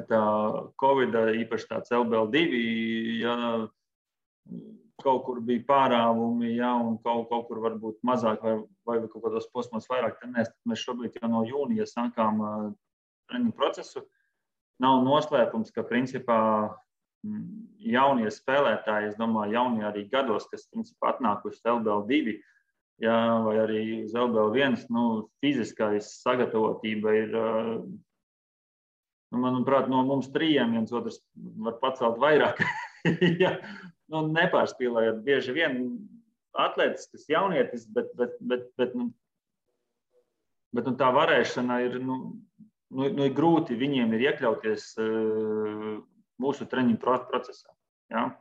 tā Covida, īpaši tāds LBL2, ja, kaut kur bija pārāvumi, ja, un kaut kur varbūt mazāk vai kaut kādos posmos vairāk trenēs, tad mēs šobrīd jau no jūnija sākām treniņu procesu. Nav noslēpums, ka principā jaunie spēlētāji, es domāju, jaunie arī gados, kas principā atnākuši LBL2, ja, vai arī uz LBL1, fiziskais sagatavotība ir, manuprāt, no mums 3, viens otrs var pacelt vairāk. Ja, nepārspīlējot bieži vien atletisks jaunietis, bet tā varēšana ir, ir grūti viņiem ir iekļauties mūsu treniņu procesā. Ja?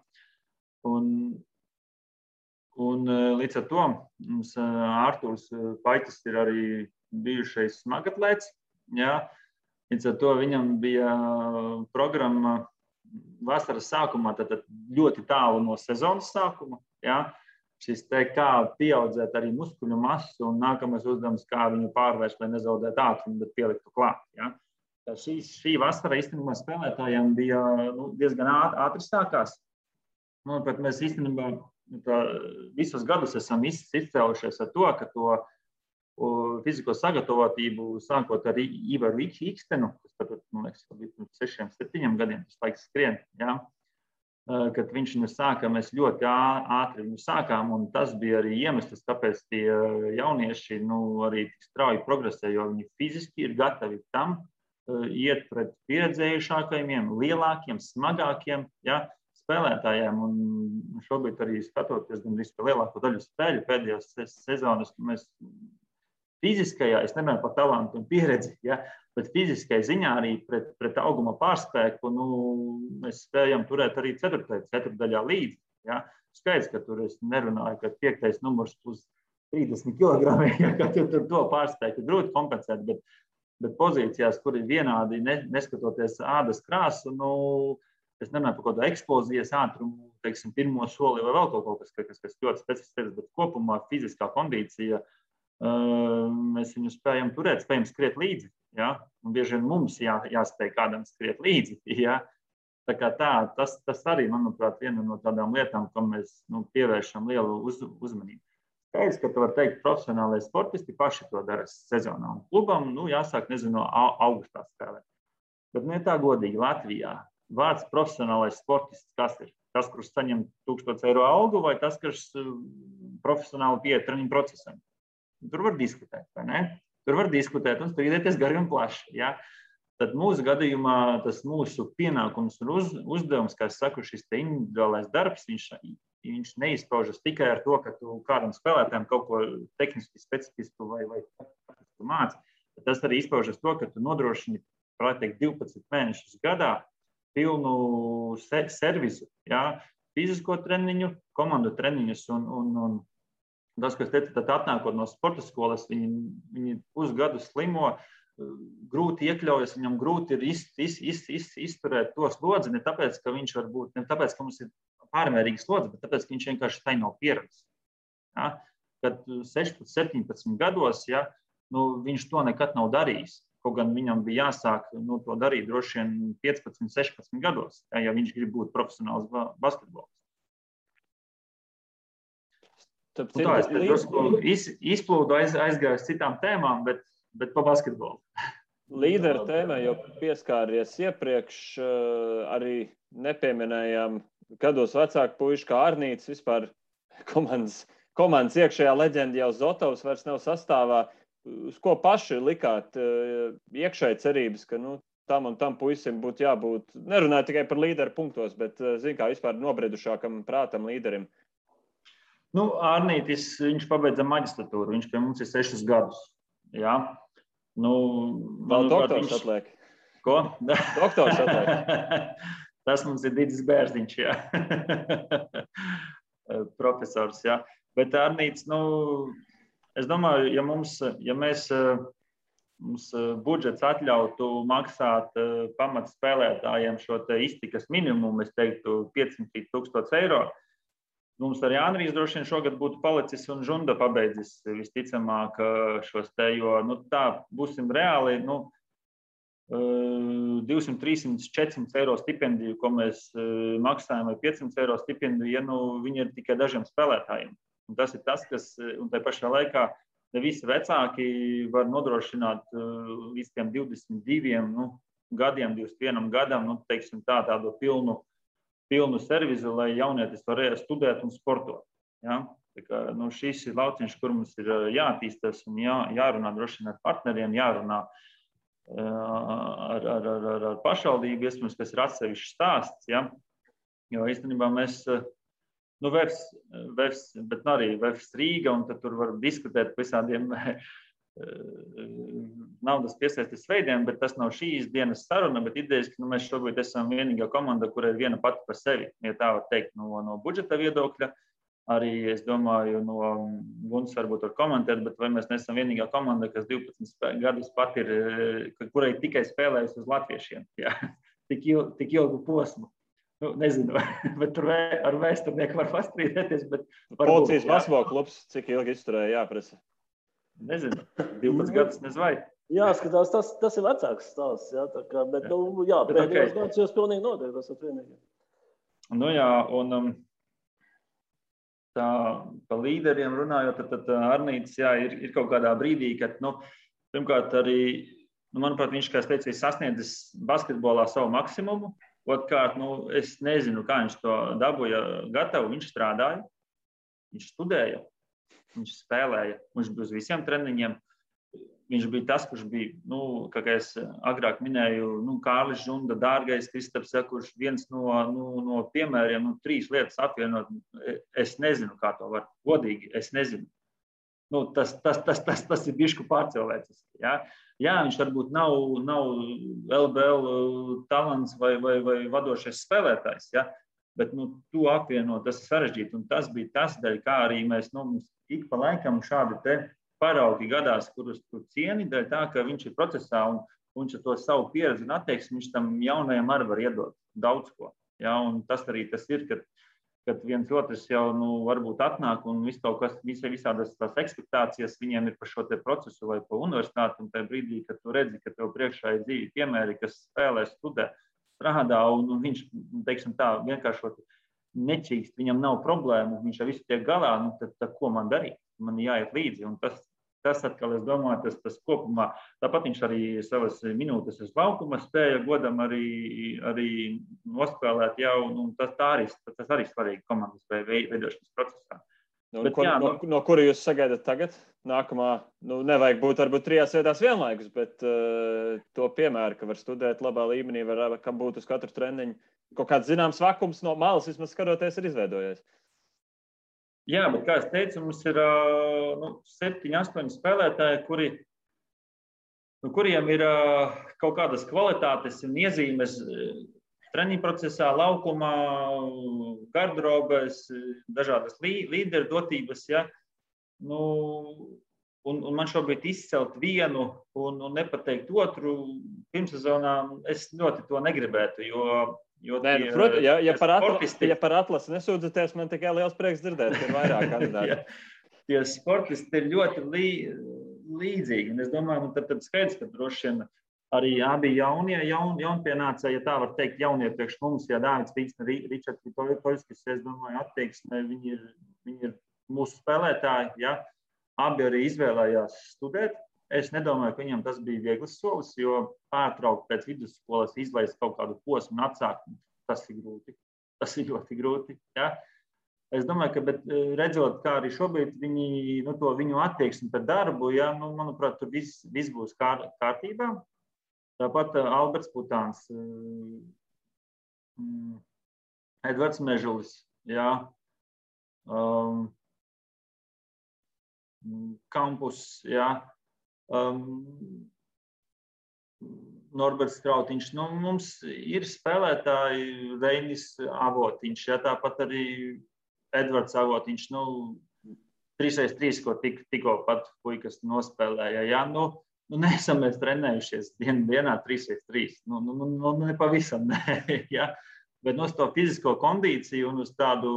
Un līdz ar to mums Ārturs Paitis ir arī bijušais smagatlēts. Ja? Līdz ar to viņam bija programma vasaras sākumā, tad ļoti tālu no sezonas sākuma. Ja? Šis kā pieaudzēt arī muskuļu masu un nākamais uzdevums, kā viņu pārvērst, lai nezaudētu ātrumu, bet pieliktu klāt. Ja? Šī vasara īstenībā spēlētājiem bija diezgan ātri sākās. Pat mēs īstenībā visus gadus esam izcēlušies ar to, ka to fizisko sagatavotību sākot ar Ivaru Ikstenu, kas tad, man liekas, bija 6-7 gadiem, tas laiks skrien, ja? Kad viņš viņu sāka, mēs ļoti ātri viņu sākām, un tas bija arī iemesls, kāpēc tie jaunieši arī tik strauji progresē, jo viņi fiziski ir gatavi tam iet pret pieredzējušākajiem, lielākiem, smagākiem, ja? Spēlētājiem, un šobrīd arī skatoties gan visu lielāko daļu spēļu pēdējās sezonas, mēs fiziskajā, es nemanāju par talantu un pieredzi, ja, bet fiziskajā ziņā arī pret auguma pārspēku, mēs spējam turēt arī ceturtdaļā līdzi. Ja. Skaidrs, ka tur es nerunāju, ka 5. numurs plus 30 kg, ja, ka tur to pārspēku grūti kompensēt, bet pozīcijās, kur ir vienādi, neskatoties ādas krāsu, es nemanāju par kādu eksplozijas ātrumu, teiksim, pirmo soli vai vēl kaut kas ļoti specifisks, bet kopumā fiziskā kondīcija mēs viņu spējam turēt, spējam skriet līdzi. Ja? Un bieži vien mums jāspēj kādam skriet līdzi. Ja? Tā kā tas arī, manuprāt, viena no tādām lietām, kam mēs pievēršam lielu uzmanību. Skaidrs, ka tu var teikt, profesionālai sportisti paši to dara sezonā. Un klubam, jāsāk, nezinu, augustā spēlēt. Bet tā godīgi Latvijā. Vārds profesionālais sportists, kas ir? Tas, kurš saņem 1000 eiro algu, vai tas, kurš profesionāli pieeja treniņu procesam? Tur var diskutēt, vai ne? Tur var diskutēt un strīdēties gari un plaši. Ja? Tad mūsu gadījumā tas mūsu pienākums un uzdevums, kā es saku, šis te individuālais darbs, viņš neizpaužas tikai ar to, ka tu kādam spēlētājam kaut ko tehniski specifisku vai māci. Tas arī izpaužas to, ka tu nodrošini, varētu teikt, 12 mēnešus gadā pilnu servisu, ja, fizisko treniņu, komandu treniņus un tas, kas teica, tad atnākot no sporta skolas, viņi pusgadu slimo, grūti iekļaujas, viņam grūti ir izturēt to slodzi, ne tāpēc, ka viņš var būt, ne tāpēc, ka mums ir pārmērīga slodze, bet tāpēc, ka viņš vienkārši tai nav pieredzis. Ja, kad 16, 17 gados, ja, viņš to nekad nav darījis. Kaut gan viņam bija jāsāk to darīt droši vien 15, 16 gados, ja viņš grib būt profesionāls basketbols. Es izplūdu aizgāju uz citām tēmām, bet pa basketbolu. Līderu tēmai jau pieskāries iepriekš, arī nepieminējām gados vecāku puišu kā Arnīts, vispār komandas iekšējā leģenda jau Zotovs vairs nav sastāvā. Uz ko paši likāt iekšēji cerības, ka tam un tam puisim būtu jābūt, nerunāju tikai par līderu punktos, bet, kā vispār nobriedušākam prātam līderim? Arnītis, viņš pabeidza maģistratūru, viņš pie mums ir 6 gadus. Jā. Vēl doktors atliek. Ko? Doktors atliek. Tas mums ir Didis Bērziņš, jā. Profesors, jā. Bet Arnīts, es domāju, ja mēs budžets atļautu maksāt pamatspēlētājiem šo te iztikas minimumu, es teiktu 500,000 eiro, mums ar Jānrīs droši vien šogad būtu palicis un Žunda pabeidzis visticamāk šos te, jo tā būsim reāli, 200, 300, 400 eiro stipendiju, ko mēs maksājam, vai 500 eiro stipendiju, ja viņi ir tikai dažiem spēlētājiem. Un tas ir tas, kas, un tai pašā laikā ne visi vecāki var nodrošināt līdz tiem 22 gadiem, 21 gadam, teiksim tādu pilnu servizu, lai jaunietis var studēt un sportot. Ja? Tā kā, šis ir lauciņš, kur mums ir jātīstās un jārunā droši vien ar partneriem, jārunā ar pašvaldību, iespējams, kas ir atsevišķs stāsts. Ja? Jo īstenībā mēs, bet arī Vefs Rīga, un tad tur var diskutēt par visādiem naudas piesaistes veidiem, bet tas nav šīs dienas saruna, bet idejas, ka mēs šobrīd esam vienīgā komanda, kur ir viena pati par sevi, ja tā var teikt, no budžeta viedokļa. Arī, es domāju, no Guns varbūt var komentēt, bet vai mēs nesam vienīgā komanda, kas 12 gadus pat ir, kurai tikai spēlējusi uz latviešiem, jā, tik ilgu posmu. Nezinu, bet tur ar vēsturnieku var pastrīdēties, bet varbūt. Policijas basketbola klubs, cik ilgi izturēja jāprasa? Nezinu, 12 gadus nezvai. Jāskatās, tas ir vecāks stāsts, jā, tā kā, bet, pēdējos gadus jūs pilnīgi noteikti, tas ir vienīgi. Jā, un tā pa līderiem runājot, tad Arnītis, jā, ir kaut kādā brīdī, kad, pirmkārt arī, manuprāt, viņš, kā es teicu, ir sasniedzis basketbolā savu maksimumu. Otkārt, es nezinu, kā viņš to dabūja gatavu, viņš strādāja, viņš studēja. Viņš spēlēja, viņš bija uz visiem treniņiem. Viņš bija tas, kurš bija, kā es agrāk minēju, Kārlis Žunda, Dārgais Kristaps, kurš viens no piemēriem, 3 lietas apvienot. Es nezinu, kā to var. Godīgi, es nezinu. Tas ir bišku pārcilvēcis. Ja? Jā, viņš varbūt nav LBL talants vai vadošais spēlētājs, ja? Bet to apvienot, tas ir sarežģīti. Un tas bija tas dēļ, kā arī mēs ik pa laikam šādi te paraugi gadās, kurus tu cieni, dēļ tā, ka viņš ir procesā un viņš ar to savu pieredzi un attieksmi, viņš tam jaunajam arī var iedot daudz ko. Ja? Un tas arī tas ir, kad viens otrs jau varbūt atnāk un visādas tās ekspektācijas viņiem ir par šo te procesu vai pa universitāti, un tajā brīdī, kad tu redzi, ka tev priekšā ir dzīvi piemēri, kas spēlē, studē, strādā, un viņš, teiksim tā, vienkārši nečīkst, viņam nav problēmu, viņš ar visu tiek galā, tad ko man darīt? Man jāiet līdzi, un tas atkal, es domāju, tas kopumā, tāpat viņš arī savas minūtes uz laukuma spēja godam arī nospēlēt jau, un tas arī svarīgi komandas veidošanas procesā. No kura jūs sagaidat tagad? Nākamā, nevajag būt varbūt 3 vietās vienlaikus, bet to piemēru, ka var studēt labā līmenī, kam būt uz katru treniņu. Kaut kāds zināms vakums no malas, vismaz skatoties, ir izveidojies. Jā, bet kā es teicu, mums ir 7, 8 spēlētāji, kuriem ir kaut kādas kvalitātes un iezīmes treniņu procesā, laukumā, garderobēs, dažādas līderu dotības. Ja? Un man šobrīd izcelt vienu un nepateikt otru pirmsezonā, es ļoti to negribētu, jo par atlasi nesūdzaties, man tikai liels prieks dzirdēt, ka ir vairāk kandidāti. Tie sportisti ir ļoti līdzīgi. Un es domāju, tad skaidrs, ka droši vien arī abi jaunpienācēji, ja tā var teikt, jaunie priekš mums, ja Dāvids Tīksne, Ričards Vitoļskis, es domāju, attieksme, viņi ir mūsu spēlētāji, ja? Abi arī izvēlējās studēt. es nedomāju, ka viņam tas bija viegls solis, jo pārtraukt pēc vidusskolas izlaist kaut kādu posmu un atsākt, tas ir grūti. Tas ir ļoti grūti. Ja? Es domāju, ka redzot, kā arī šobrīd viņu attieksmi pret darbu, ja, manuprāt, tur viss būs kārtībā. Tāpat Alberts Putāns, Edvards Mežulis, ja, Kampus, ja, Norberts Krautiņš. Mums ir spēlētāji Reinis Avotiņš, ja, tāpat arī Edvards Avotiņš, 3x3, ko tikko pat puikas nospēlēja. Ja, neesam mēs trenējušies dienā 3x3. Nepavisam, ne. Ja. Bet uz to fizisko kondīciju un uz tādu,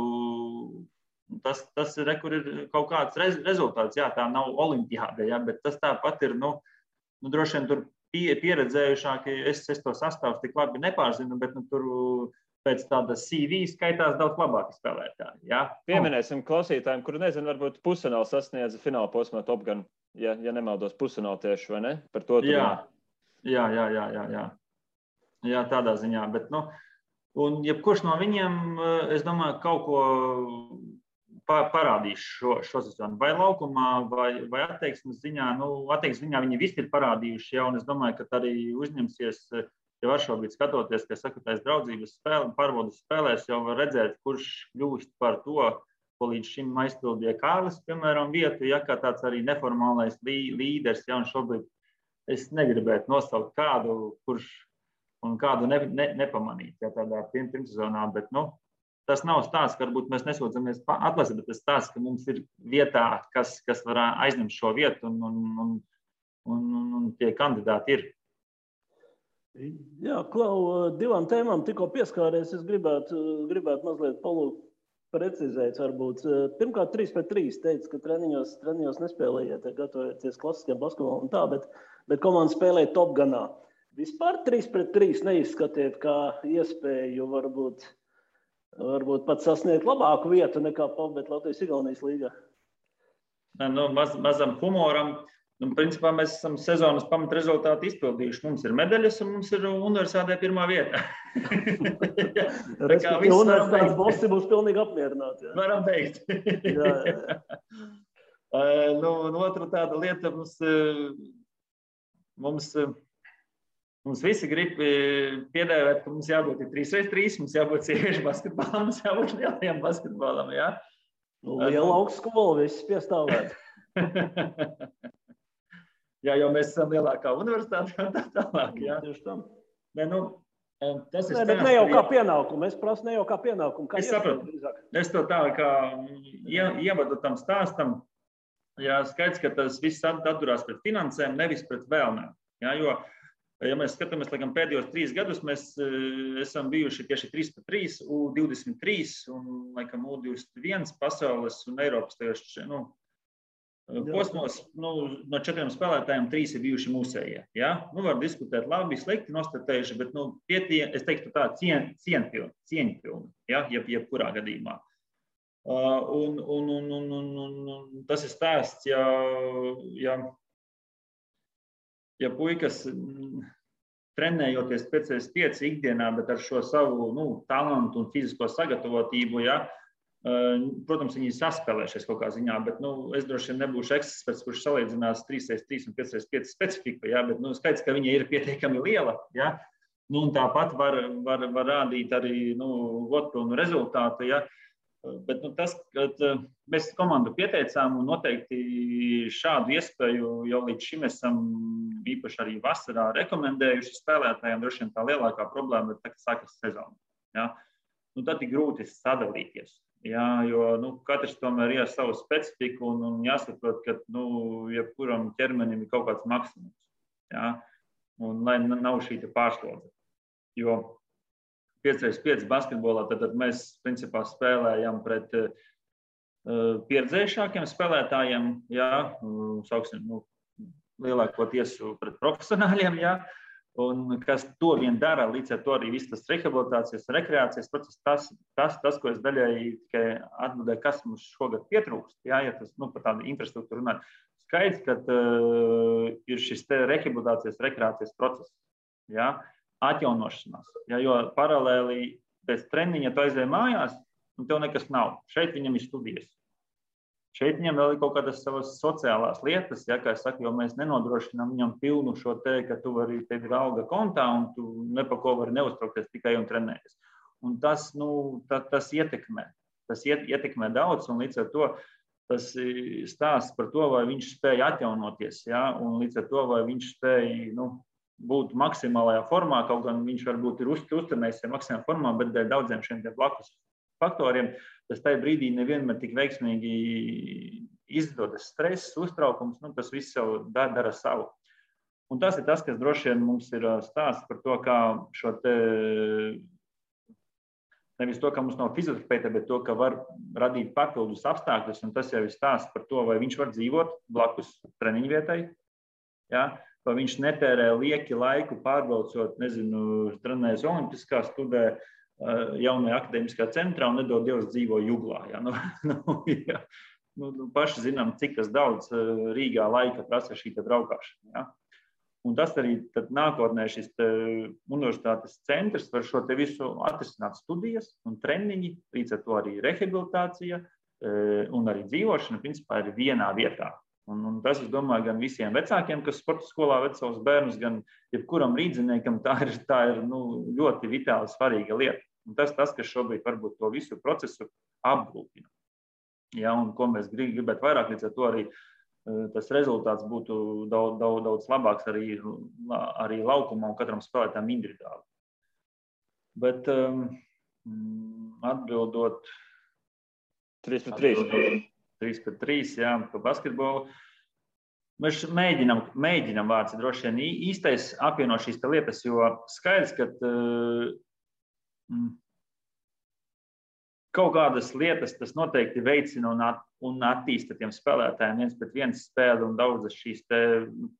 tas ir, kur ir kaut kāds rezultāts. Jā, tā nav olimpiāde, ja, bet tas tāpat ir, droši vien tur pieredzējušāki, es to sastāvus tik labi nepārzinu, bet tur pēc tādas CV skaitās daudz labāki spēlētāji. Ja? Pieminēsim klausītājiem, kuri nezinu, varbūt pusfināli sasniedza fināla posmā Top Gun, ja nemaldos pusfināli tieši, vai ne? Par to Jā, tādā ziņā. Bet, un jebkurš no viņiem, es domāju, kaut ko parādīs šo sezonu. Vai laukumā, vai attieksmes ziņā. Attieksmes ziņā viņi visi ir parādījuši, ja, un es domāju, ka arī uzņemsies. Ja var šobrīd skatoties, ka sakrutās draudzības pārbaudas spēlēs, jau var redzēt, kurš kļūst par to, ko līdz šim aizpildīja Kārlis, piemēram, vietu, ja kā tāds arī neformālais līderis, ja, un šobrīd es negribētu nosaukt kādu, kurš un kādu nepamanīt, ja tādā pirmsezonā, bet, tas nav stāsts, ka varbūt mēs nesūdzamies atlasīt, bet tas stāsts, ka mums ir vietā, kas var aizņemt šo vietu, un tie kandidāti ir. Jā, Klau, divām tēmām tikko pieskāries. Es gribētu mazliet precizēt. Varbūt. Pirmkārt, 3x3 teica, ka treniņos nespēlējiet, gatavojoties klasiskajam basketbolam un tā, bet komanda spēlēja Top Gunā. Vispār 3x3 neizskatiet kā iespēju varbūt pat sasniegt labāku vietu nekā pabeigt Latvijas-Igaunijas līgā. Mazam humoram. Principā mēs esam sezonas pamatrezultātu izpildījuši. Mums ir medaļas un mums ir universitātē pirmā vieta. Universitātes bosi būs pilnīgi apmierināti. Jā. Varam teikt. Otra tāda lieta, mums visi grib piedēvēt, ka mums jābūt 3x3, mums jābūt sieviešu basketbolam, mums jābūt lielajam basketbolam. Ja? Liela augstskola, viss piestāvēt. Jā, jo mēs esam lielākā universitāte un tā tālāk. Jā, tieši tam. Tas ir bet ne jau kā pienākumu. Es prasu ne jau kā pienākumu. Kā es sapratu. Es to tā kā ievadu tam stāstam. Jā, skaidrs, ka tas viss atturās pret finansēm, nevis pret vēlmēm. Jā, jo, ja mēs skatāmies, laikam, pēdējos 3 gadus, mēs esam bijuši tieši 3x3, U23 un, laikam, U21 pasaules un Eiropas tajos, posmos, no 4 spēlētājiem 3 ir bijuši mūsējie. Ja? Var diskutēt labi, slikti nostartējuši, bet es teiktu tā cieņpilni, ja? Jebkurā gadījumā. Un tas ir stāsts, ja puikas trenējoties pēc 5 ikdienā, bet ar šo savu talantu un fizisko sagatavotību, ja? Protams, viņi saspēlēšies kaut kā ziņā, bet es droši vien nebūšu eksperts, kurš salīdzinās 3x3 un 5x5 specifiku, ja, bet skaidrs, ka viņa ir pietiekami liela. Ja, un tāpat var rādīt arī godpilnu rezultātu. Ja, bet tas, kad mēs komandu pieteicām un noteikti šādu iespēju jau līdz šim esam īpaši arī vasarā rekomendējuši spēlētājiem, droši vien tā lielākā problēma ir tā, ka sākas sezona. Ja. Tad ir grūti sadalīties. Jā, jo katrs tomēr ir ar savu specifiku un jāsaprot, ka jebkuram ķermenim ir kaut kāds maksimums. Jā, un lai nav šī pārslodze. Jo 5x5 basketbolā tad mēs principā spēlējam pret pieredzējušākiem spēlētājiem, jā, sauksim, lielākoties pret profesionāļiem, jā. Un kas to vien dara, līdz ar to arī viss tas rehabilitācijas, rekreācijas process, tas, ko es daļēji tikai atbildēju, kas mums šogad pietrūkst, ja tas par tādu infrastruktūru runāt. Skaidrs, ka ir šis te rehabilitācijas, rekreācijas process, ja, atjaunošanās, ja, jo paralēli pēc treniņa tu aizēji mājās, un tev nekas nav. Šeit viņam ir studijas. Šeit viņam vēl ir kaut kādas savas sociālās lietas, ja, kā es saku, jo mēs nenodrošinām viņam pilnu šo te, ka tu vari, tev ir alga kontā un tu nepako vari neuztraukties tikai un trenēties. Un tas, tas ietekmē. Tas ietekmē daudz, un līdz ar to tas stāsts par to, vai viņš spēja atjaunoties, ja, un līdz ar to, vai viņš spēja būt maksimālajā formā, kaut gan viņš varbūt ir uztrenējis maksimālajā formā, bet dēļ daudziem šiem blakus faktoriem, tas tajā brīdī nevienmēr tik veiksmīgi izdodas stress, uztraukums, tas viss jau dara savu. Un tas ir tas, kas droši vien mums ir stāsts par to, kā šo te, nevis to, ka mums nav fizioterapeita, bet to, ka var radīt papildus apstākļus, un tas jau ir stāsts par to, vai viņš var dzīvot blakus treniņu vietai, ja? Vai viņš netērē lieki laiku pārbraucot, trenējas olimpiskā studē, jaunajā akadēmiskā centrā un nedod Dievs dzīvo Juglā. Ja? Ja. Paši zinām, cik tas daudz Rīgā laika prasa šī braukšana. Ja? Un tas arī nākotnē šis universitātes centrs var šo te visu atrisināt studijas un treniņi, līdz ar to arī rehabilitācija un arī dzīvošana, principā, ir vienā vietā. Un tas, es domāju, gan visiem vecākiem, kas sporta skolā ved savus bērnus, gan jebkuram rīdziniekam, tā ir ļoti vitāli svarīga lieta. Un tas, kas šobrīd varbūt to visu procesu apgrūtina. Ja, un ko mēs gribētu vairāk, līdz ar to arī tas rezultāts būtu daudz labāks arī laukumā un katram spēlētājam individuāli. Bet atbildot 3-3. 3-3, jā, par basketbolu. Mēs mēģinam vārds droši vien īstais apvieno šīs lietas, jo skaidrs, ka kaut kādas lietas tas noteikti veicina un attīsta tiem spēlētājiem viens pret viens spēli un daudzas šīs te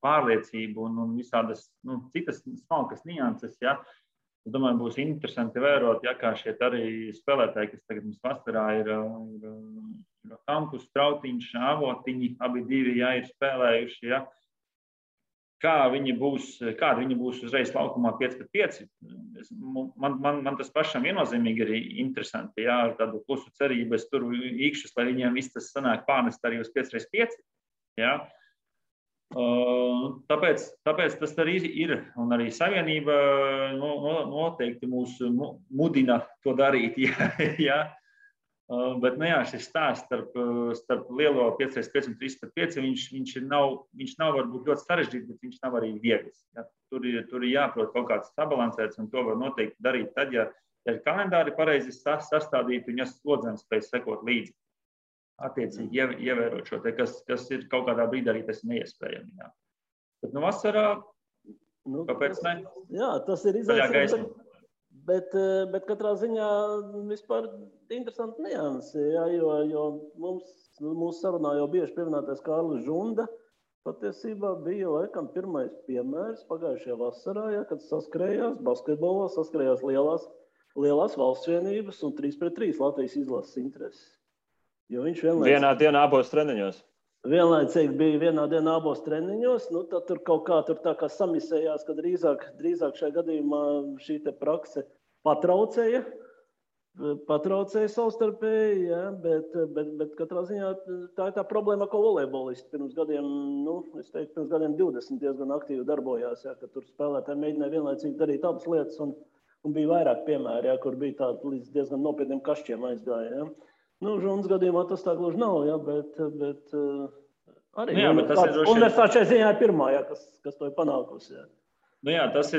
pārliecību un visādas citas smalkas nianses, ja. Es domāju, būs interesanti vērot, ja, kā šie arī spēlētāji, kas tagad mums vasarā ir Hampus, Strautiņš, Avotiņi, abi divi, ja, ir spēlējuši, ja. Kādi viņi būs uzreiz laukumā 5-5. Man tas pašam viennozīmīgi ir interesanti, ja, ar tādu klusu cerību, es tur īkšus, lai viņiem viss tas sanāk pārnest arī uz 5x5. Ja. Tāpēc tas arī ir, un arī Savienība noteikti mūs mudina to darīt. Ja. Bet šis stāsts starp lielo 5x5 un 3x5, viņš nav varbūt ļoti sarežģīts, bet viņš nav arī viegls. Ja. Tur ir jāprot kaut kāds sabalansēts, un to var noteikti darīt tad, ja ir kalendāri pareizi sastādīti, un ja slodzēm spēj sekot līdzi. Attiecīgi ievērot šo te, kas ir kaut kādā brīdī arī tas neiespējami. Jā. Bet vasarā, kāpēc ne? Jā, tas ir izaicinājums, bet katrā ziņā vispār interesanti niansi, jā, jo mūsu sarunā jau bieži pieminētais Kārlis Žunda patiesībā bija laikam pirmais piemērs pagājušajā vasarā, ja, kad saskrējās basketbolā, saskrējās lielās valsts vienības un 3-3 Latvijas izlases intereses. Vienā dienā abos treniņos. Vienlaicīgi bija vienā dienā abos treniņos, tad tur kaut kā tā kā samisējās, ka drīzāk šajā gadījumā šī te prakse patraucēja savstarpēji, ja, bet katrā ziņā tā ir tā problēma, ko volejbolisti pirms gadiem 20 diezgan aktīvi darbojās, ja, ka tur spēlētāji mēģināja vienlaicīgi darīt abas lietas un bija vairāk piemēri, ja, kur bija tādi līdz diezgan nopietniem kašķiem aizgāja. Ja. Žunas gadījumā tas tā gluži nav, ja, bet arī universitāte šajā ziņā ir pirmā, ja, kas to ir panākusi. Ja. Tas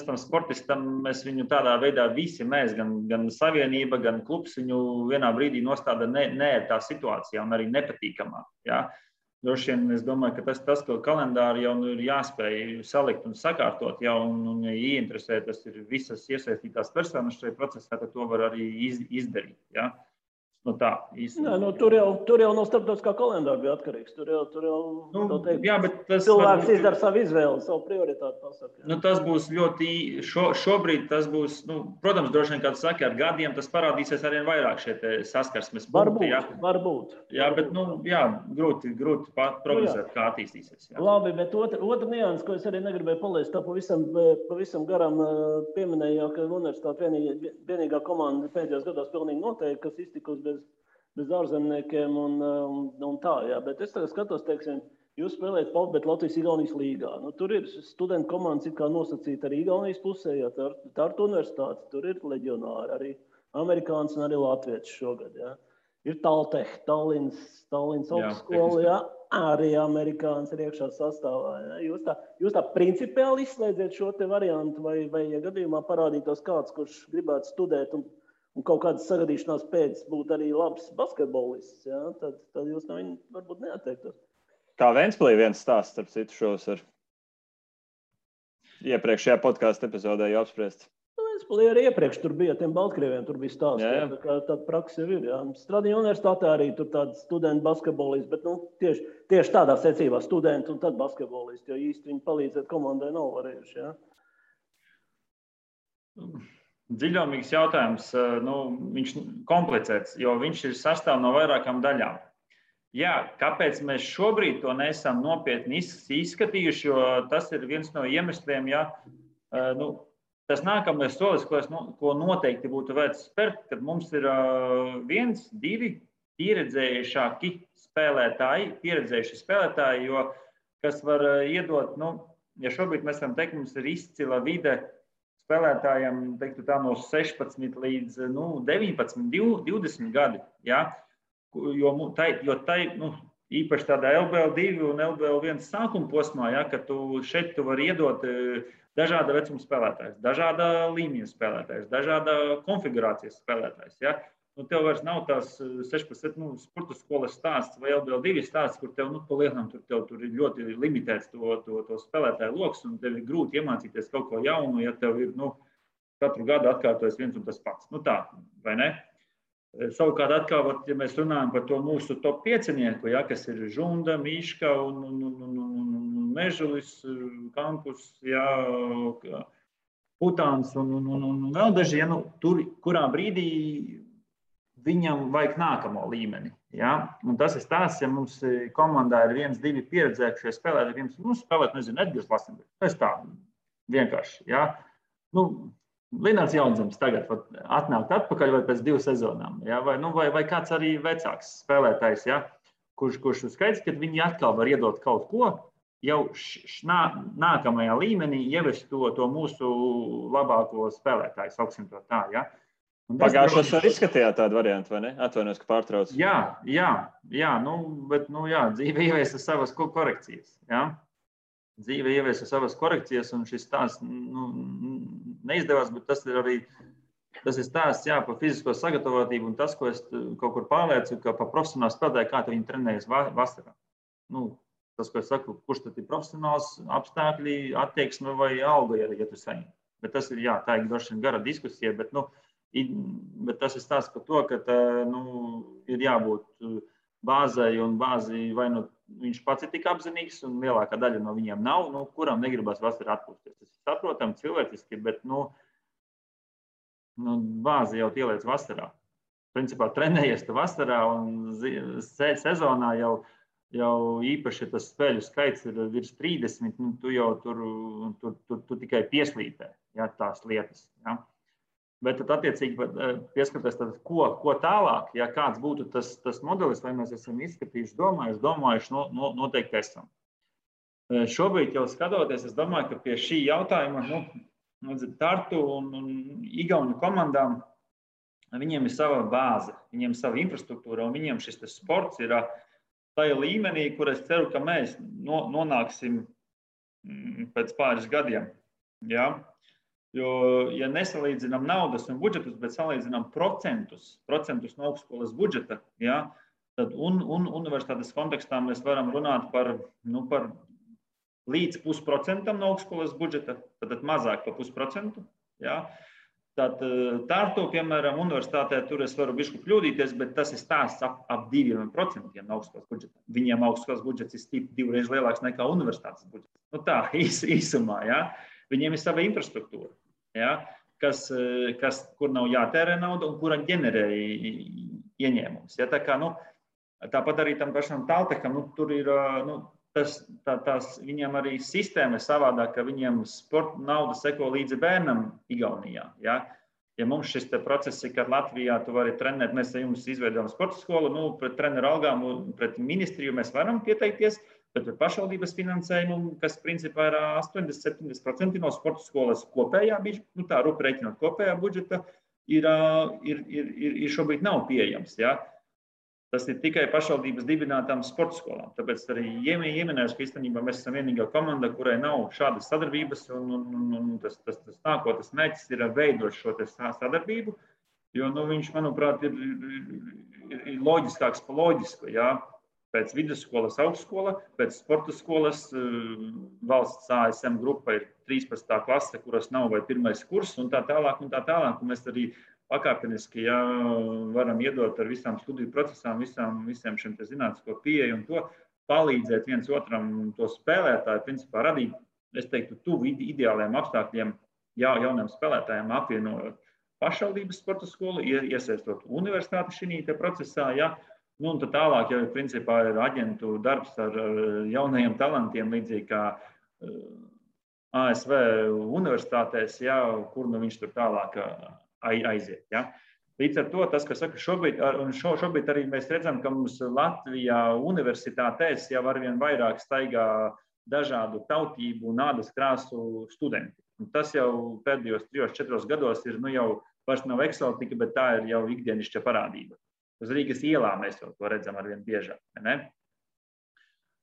tam sportistam, mēs viņu tādā veidā visi mēs, gan savienība, gan klubs viņu vienā brīdī nostāda neērtā situācijā un arī nepatīkamā. Ja. Droši vien es domāju, ka tas ko kalendāri jau ir jāspēj salikt un sakārtot, ja, un ieinteresēt, tas ir visas iesaistītās personas šajā procesā, ka to var arī izdarīt. Ja. No tā, īsti. Nē, tur jau no starptautiskā kalendāra bija atkarīgs. Tur jau teikt, jā, bet tas cilvēks izdara savu izvēli, savu prioritāti pasaka. Nu, tas būs ļoti, šobrīd tas būs, protams, droši vien, kā tu saki, ar gadiem tas parādīsies arvien vairāk šie saskarsmes punkti. Varbūt. Jā, bet, grūti prognozēt, kā attīstīsies. Jā. Labi, bet otra nianses, ko es arī negribēju palaist, tā pavisam garam pieminēju, ka universitāte vienīgā komanda pēdējos gados pilnīgi noteikti, kas iztikusi bez ārzemniekiem un tā, jā. Bet es tagad skatos, teiksim, jūs spēlējat Palbet Latvijas-Igaunijas līgā. Tur ir studentu komandas it kā nosacīta arī Igaunijas pusē, jā, Tartu universitāte, tur ir leģionāri, arī amerikāns un arī latvieši šogad, jā. Ir Taltech, Tallinas augstskola, jā, arī amerikāns ir iekšā sastāvā, jā. Jūs tā principiāli izslēdziet šo te variantu, vai ja gadījumā parādītos kāds, kurš gribētu studēt un kaut kādas sagadīšanās pēc būt arī labs basketbolists, jā, tad jūs no viņa varbūt neatteiktos. Kā Ventspilī viens stāsts, starp citu, šos ar iepriekšējā podkāstu epizodē jau apspriests. Ventspilī arī iepriekš tur bija tiem Baltkrieviem, tur bija stāsts, tā kā tāda praksa jau ir, jā. Stradiņa universitātē arī tur tādi studenti basketbolisti, bet tieši tādā secībā studenti un tad basketbolisti, jo īsti viņi palīdzēt komandai nav varējuši, jā. Dziļumīgs jautājums, viņš komplicēts, jo viņš ir sastāv no vairākām daļām. Jā, kāpēc mēs šobrīd to neesam nopietni izskatījuši, jo tas ir viens no iemesliem, jā, tas nākamais solis, ko noteikti būtu vērts spērt, kad mums ir 1, 2 pieredzējuši spēlētāji, jo kas var iedot, ja šobrīd mēs varam teikt, mums ir izcila vide spēlētājiem, teiktu tā, no 16 līdz 19, 20 gadi, jā. Jo īpaši tādā LBL2 un LBL1 sākuma posmā, ja, ka šeit tu vari iedot dažāda vecuma spēlētājs, dažāda līmeņa spēlētājs, dažāda konfigurācijas spēlētājs. Ja. Tev vairs nav tās 16 sporta skolas stāsts vai LBL2 stāsts, kur tev pa lielām tur ir ļoti limitēts to spēlētāju loks un tev ir grūti iemācīties kaut ko jaunu, ja tev ir katru gadu atkārtojas viens un tas pats. Tā, vai ne? Savukārt atkal, ja mēs runājam par to mūsu top 5-nieku, ja, kas ir Žunda, Miška un Mežulis, Kampus, ja, Putāns un vēl daži, ja, tur, kurā brīdī viņam vajag nākamo līmeni. Ja? Un tas ir stāsts, ja mums komandā ir 1, 2 pieredzējušie spēlētāji, spēlēt, Edgars Lasenbergs. Tas tā vienkārši. Ja? Linārds Jaunzems tagad atnākt atpakaļ vai pēc 2 sezonām. Ja? Vai kāds arī vecāks spēlētājs, ja? kurš skaidrs, ka viņi atkal var iedot kaut ko, jau nākamajā līmenī ievest to mūsu labāko spēlētāju, sauksim to tā. Ja? Pagājušos var izskatījāt tādu variantu, vai ne? Atvainojos, ka pārtrauc. Bet dzīve ieviesa savas korekcijas. Ja? Dzīve ieviesa savas korekcijas, un šis stāsts neizdevās, bet tas ir stāsts par fizisko sagatavotību, un tas, ko es kaut kur pārliecu, ka pa profesionālu spēlētāju, kā viņi trenējas vasarā. Tas, ko es saku, kurš tad ir profesionāls apstākļi, attieksme vai alga, ja tu saņem. Bet tas ir, tā ir droši vien gara diskusija, bet tas ir stāsts par to, ka ir jābūt bāzai, un bāzi vai viņš pats ir tik apzinīgs, un lielākā daļa no viņiem nav, kuram negribas vasarā atpūsties. Tas ir saprotam cilvēciski, bet bāzi jau ieliec vasarā. Principā trenējies tu vasarā, un sezonā jau īpaši tas spēļu skaits ir virs 30, tu jau tu tikai pieslīpē, tās lietas. Ja? Bet tad attiecīgi pieskaties, ko tālāk, ja kāds būtu tas modelis, vai mēs esam izskatījuši, domājuši, noteikti esam. Šobrīd jau skatoties, es domāju, ka pie šī jautājuma Tartu un Igauņu komandām viņiem ir sava bāze, viņiem ir sava infrastruktūra, un viņiem šis sports ir tajā līmenī, kur es ceru, ka mēs nonāksim pēc pāris gadiem. Ja? Jo, ja nesalīdzinām naudas un budžetus, bet salīdzinām procentus no augstskolas budžeta, ja, tad un universitātes kontekstā mēs varam runāt par līdz 0,5% no augstskolas budžeta, tad mazāk par 0,5%. Ja. Tartu, piemēram, universitātē tur es varu bišķi kļūdīties, bet tas ir stāsts ap 2% no augstskolas budžeta. Viņiem augstskolas budžets ir stipri 2 reizes lielāks nekā universitātes budžets. Nu tā, īsumā, ja? Viņiem ir sava infrastruktūra, ja? Kur nav jātērē nauda un kura ģenerē ieņēmumus. Ja? Tā kā, tāpat arī tam pašam Taltecham, tur ir, viņiem arī sistēma ir savādāk, ka viņiem sporta nauda seko līdzi bērnam Igaunijā. Ja, mums šis process ir, kad Latvijā tu vari trenēt, mēs jums izveidojam sporta skolu, pret treneru algām un pret ministriju mēs varam pieteikties, bet pret pašvaldības finansējumu, kas principā ir 80-70% no sporta skolas kopējā, tā rupi reiķinot kopējā budžeta, ir šobrīd nav pieejams. Ja. Tas ir tikai pašvaldības dibinātām sporta skolām. Tāpēc arī ieminējuši, ka īstenībā mēs esam vienīgā komanda, kurai nav šādas sadarbības, un tas nākotnes mērķis ir veidot šo sadarbību, jo viņš, manuprāt, ir loģiskāks pa loģisku. Ja? Pēc vidusskolas augstskola, pēc sporta skolas valsts ASM grupa ir 13. klase, kuras nav vai pirmais kurs, un tā tālāk. Un mēs arī pakāpeniski varam iedot ar visām studiju procesām, visiem šiem zinātnisko pieeju un to palīdzēt viens otram to spēlētāju, principā radīt, es teiktu, tuvu ideāliem apstākļiem jauniem spēlētājiem, apvienojot pašvaldības sporta skolu, iesaistot universitāti šī procesā, ja, un tad tālāk jau principā ir aģentu darbs ar jaunajiem talantiem, līdzīgi kā ASV universitātēs, ja, kur viņš tur tālāk aiziet. Ja. Līdz ar to tas, kas saka, šobrīd arī mēs redzam, ka mums Latvijā universitātēs jau arvien vairāk staigā dažādu tautību un ādas krāsu studenti. Un tas jau pēdējos 3-4 gados ir jau vairs nav eksotika, bet tā ir jau ikdienišķa parādība. Uz Rīgas ielā mēs jau to redzam arvien biežāk. Ne?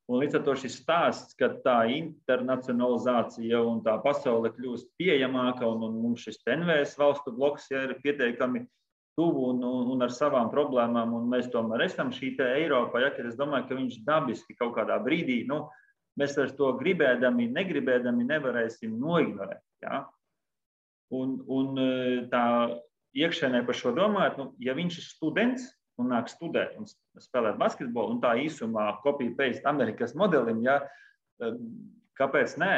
Un līdz ar to šis stāsts, ka tā internacionalizācija un tā pasaule kļūst pieejamāka un mums šis NVS valstu bloks ir pietiekami tuvu un ar savām problēmām, un mēs tomēr esam šī te Eiropa, ja, kad es domāju, ka viņš dabiski kaut kādā brīdī, mēs vairs to gribēdami, negribēdami nevarēsim noignorēt. Ja? Un tā iekšēnē par šo domājot, ja viņš ir students, un nāk studēt un spēlēt basketbolu, un tā īsumā copy-paste Amerikas modelim, ja, kāpēc nē?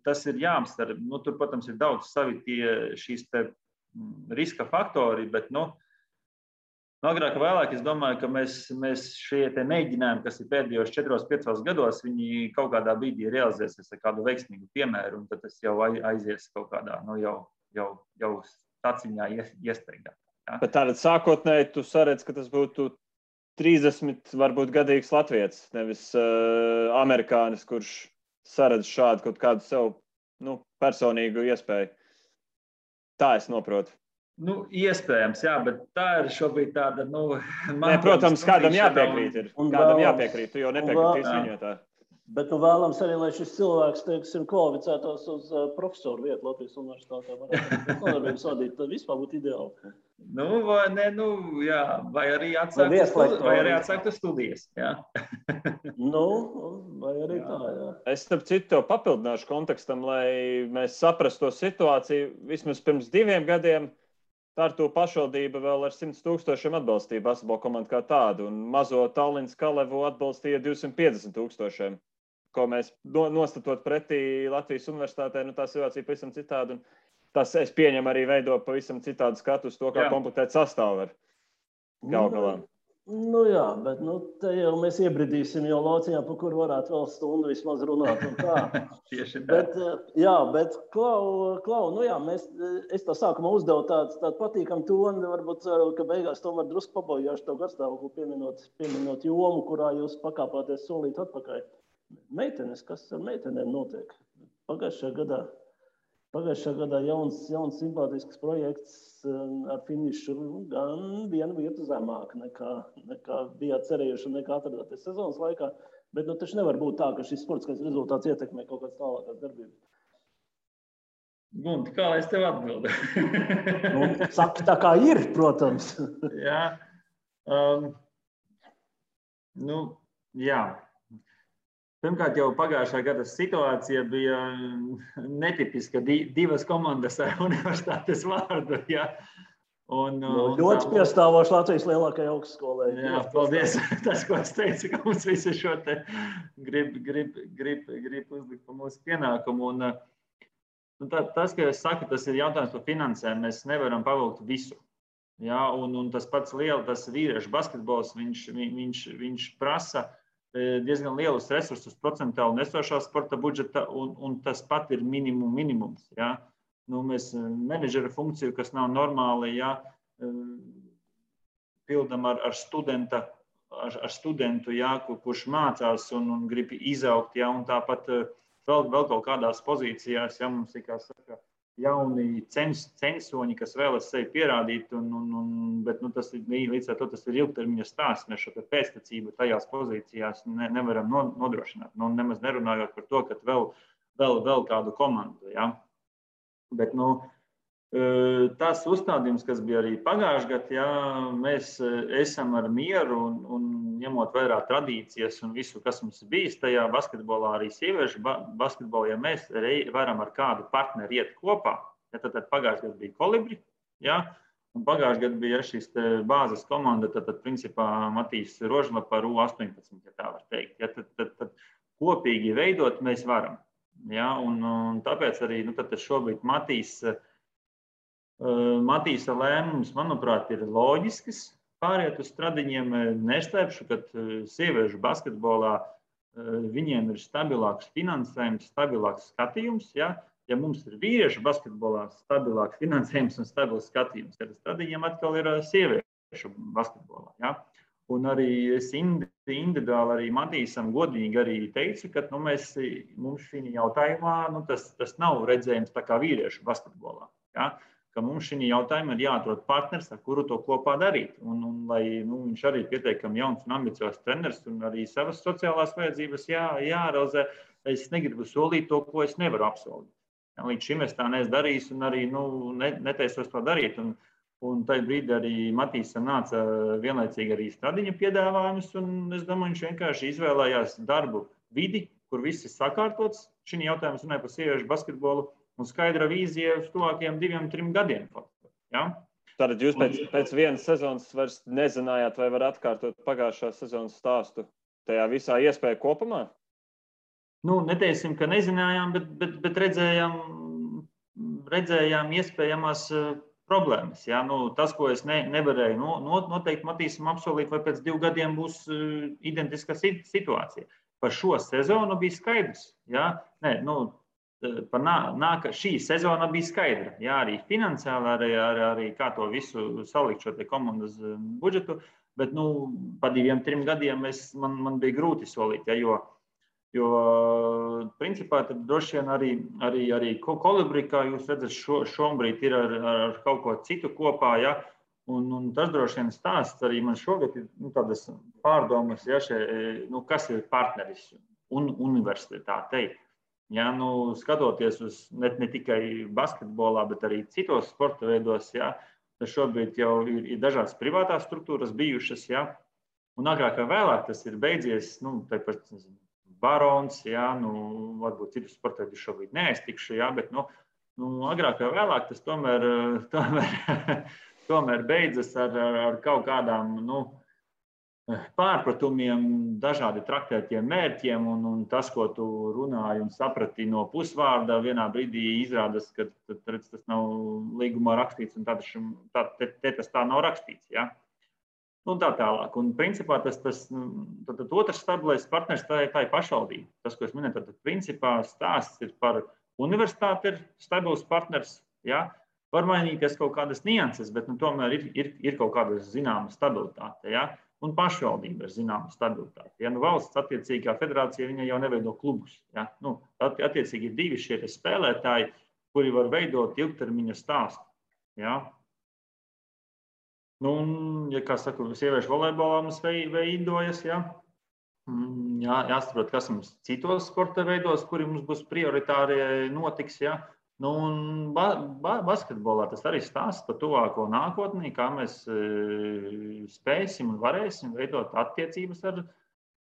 Tas ir jāapsver. Tur, protams, ir daudz savi šīs te riska faktori, bet, agrāk vēlāk es domāju, ka mēs šie te mēģinājumi, kas ir pēdējos 4-5 gados, viņi kaut kādā brīdī realizēsies ar kādu veiksmīgu piemēru, un tad tas jau aizies kaut kādā, jau taciņā iestaigā. Ja? Bet tātad sākotnēji tu saredz, ka tas būtu 30 varbūt gadīgs latvietis, nevis amerikānis, kurš saredz šādu kaut kādu sev personīgu iespēju. Tā es noprotu. Iespējams, jā, bet tā ir šobrīd tāda, protams, kādam jāpiekrīt ir. Kādam jāpiekrīt, tu jau nepiekritīs viņu tā. Bet vēlams arī, lai šis cilvēks, teiksim, kvalificētos uz profesoru vietu Latvijas universitātē. Nodarbības vadīt, tad vispār būtu ideāli. Vai arī atsāktu studijas. Jā. Vai arī tā, jā. Es starp citu tev papildināšu kontekstam, lai mēs saprastu to situāciju. Vismaz pirms 2 gadiem Tartu pašvaldība vēl ar 100 000 atbalstīja basketbola komandu kā tādu, un mazo Tallinas Kalevu atbalstīja 250 000. Ko mēs nostatot pretī Latvijas universitātē, tā situācija pavisam citāda. Un tas, es pieņemu, arī veido pavisam citādu skatu uz to, kā komplektēt sastāvu ar galā. Jā, bet te jau mēs iebridīsim jau lauciņā, pa kur varētu vēl stundu vismaz runāt un tā. Tieši tā. Bet Klau, es tā sākumā uzdevu tādu patīkamu toni, varbūt ceru, ka beigās tomēr drusku pabojāšu tev garstāvokli pieminot jomu, kurā jūs pakāpāties solīt atpakaļ. Meitenes, kas ar meitenēm notiek? Pagājušajā gadā jauns simpātisks projekts ar finišu gan vienu vietu zemāk nekā bijāt cerējuši un nekā atradāties sezonas laikā. Bet taču nevar būt tā, ka šis sportiskais rezultāts ietekmē kaut kādas tālākās darbības. Gunti, kā lai es tev atbildu? Saki tā kā ir, protams. Jā. Jā. Pirmkārt, jau pagājušā gada situācija bija netipiska. Divas komandas ar universitātes vārdu. Ja? Ļoti piestāvoši Latvijas lielākajai augstskolai. Jā, paldies. Tas, ko es teicu, ka mums visi šo te grib uzlikt pa mūsu pienākumu. Tas, ka es saku, tas ir jautājums par finansēm. Mēs nevaram pavilkt visu. Ja? Un tas pats tas vīriešu basketbols, viņš prasa diezgan lielus resursus procentuāli nesošā sporta budžeta, un tas pat ir minimums. Ja? Mēs menedžera funkciju, kas nav normāli, ja, pildam ar studentu, ja, kurš mācās un grib izaugt, ja, un tāpat vēl kaut kādās pozīcijās, ja mums ir, kā saka, jauni censoņi, kas vēlas sevi pierādīt, bet tas ir līdz ar to tas ir ilgtermiņa stāsts. Mēs šo pēctecību tajās pozīcijās nevaram nodrošināt. Nemaz nerunājot par to, ka vēl kādu komandu. Ja? Bet tas uzstādījums, kas bija arī pagājušajā gadā, ja, mēs esam ar mieru un ņemot vērā tradīcijas un visu, kas mums bijis tajā basketbolā, arī sieviešu basketbolā, ja mēs varam ar kādu partneri iet kopā, ja, tad pagājušajā gadā bija Kolibri, ja, un pagājušajā gadā bija šīs bāzes komanda, tad principā Matīs Rožlapa ar U18, ja tā var teikt. Ja, tad kopīgi veidot mēs varam. Ja, un tāpēc arī šobrīd Matīsa lēmums, manuprāt, ir loģisks. Pāriet uz stradiņiem, neslēpšu, ka sieviešu basketbolā viņiem ir stabilāks finansējums, stabilāks skatījums. Ja, ja mums ir vīriešu basketbolā stabilāks finansējums un stabils skatījums, tad stradiņiem atkal ir sieviešu basketbolā. Ja. Un arī es individuāli arī Matīsam godīgi arī teicu, ka mums šī jautājumā tas nav redzējums tā kā vīriešu basketbolā. Ja. Ka mums šī jautājuma ir jāatrod partners, ar kuru to kopā darīt. Un lai viņš arī pietiekami jauns un ambiciozs treneris un arī savas sociālās vajadzības jārealizē, es negribu solīt to, ko es nevaru apsolīt. Ja, līdz šim es tā neesmu darījis un arī netaisos to darīt. Un tajā brīdī arī Matīsam nāca vienlaicīgi arī stradiņa piedāvājums, un es domāju, viņš vienkārši izvēlējās darbu vidi, kur viss ir sakārtots. Šī jautājums runāja par sieviešu basketbolu. Un skaidra vīzija uz tuvākajiem 2-3 gadiem. Ja? Tātad jūs pēc vienas sezonas vairs nezinājāt, vai var atkārtot pagājušā sezonas stāstu tajā visā iespēja kopumā? Neteiksim, ka nezinājām, bet redzējām iespējamās problēmas. Ja? Tas, ko es nevarēju noteikti Matīsam apsolīt, vai pēc 2 gadiem būs identiska situācija. Par šo sezonu bija skaidrs. Ja? Šī sezona bija skaidra. Jā, arī finansiāli, arī kā to visu salikt šo komandas budžetu, bet pa 2-3 gadiem man bija grūti solīt, ja, jo principā tad droši vien arī Kolibri, kā jūs redzat, šobrīd ir ar kaut ko citu kopā, ja, un tas droši vien stāsts arī man šogad ir tādas pārdomas, ja, kas ir partneris un universitātei. Ja, skatoties uz ne tikai basketbolā, bet arī citos sporta veidos, ja, tad šobrīd jau ir dažādas privātās struktūras bijušas. Ja, un agrāk vai vēlāk tas ir beidzies, tāpat Barons, ja, varbūt citus sporta veidus šobrīd neaiztikšu, ja, bet agrāk vai vēlāk tas tomēr beidzas ar kaut kādām pārpratumiem, dažādi traktētiem mērķiem, un tas, ko tu runāji un saprati no pusvārda, vienā brīdī izrādās, ka tas nav līgumā rakstīts, un tas tā nav rakstīts. Ja? Un tā tālāk. Un principā tas otrs stabilais partners tā ir pašvaldība. Tas, ko es minēju, tad principā stāsts ir par universitāti, ir stabils partners. Ja? Var mainīties kaut kādas nianses, bet tomēr ir kaut kāda zināma stabilitāte. Ja? Un pašvaldība ir zināma stabilitāte. Ja, valsts attiecīgā federācija viņa jau neveido klubus. Ja. Attiecīgi ir 2 šie spēlētāji, kuri var veidot ilgtermiņa stāstu. Ja. Ja kā saka, sieviešu volejbolā mums veidojas, ja. Jāsaprot, kas mums citos sporta veidos, kuri mums būs prioritārie notiks. Ja. Un basketbolā tas arī stāsts par tuvāko nākotnī, kā mēs spēsim un varēsim veidot attiecības ar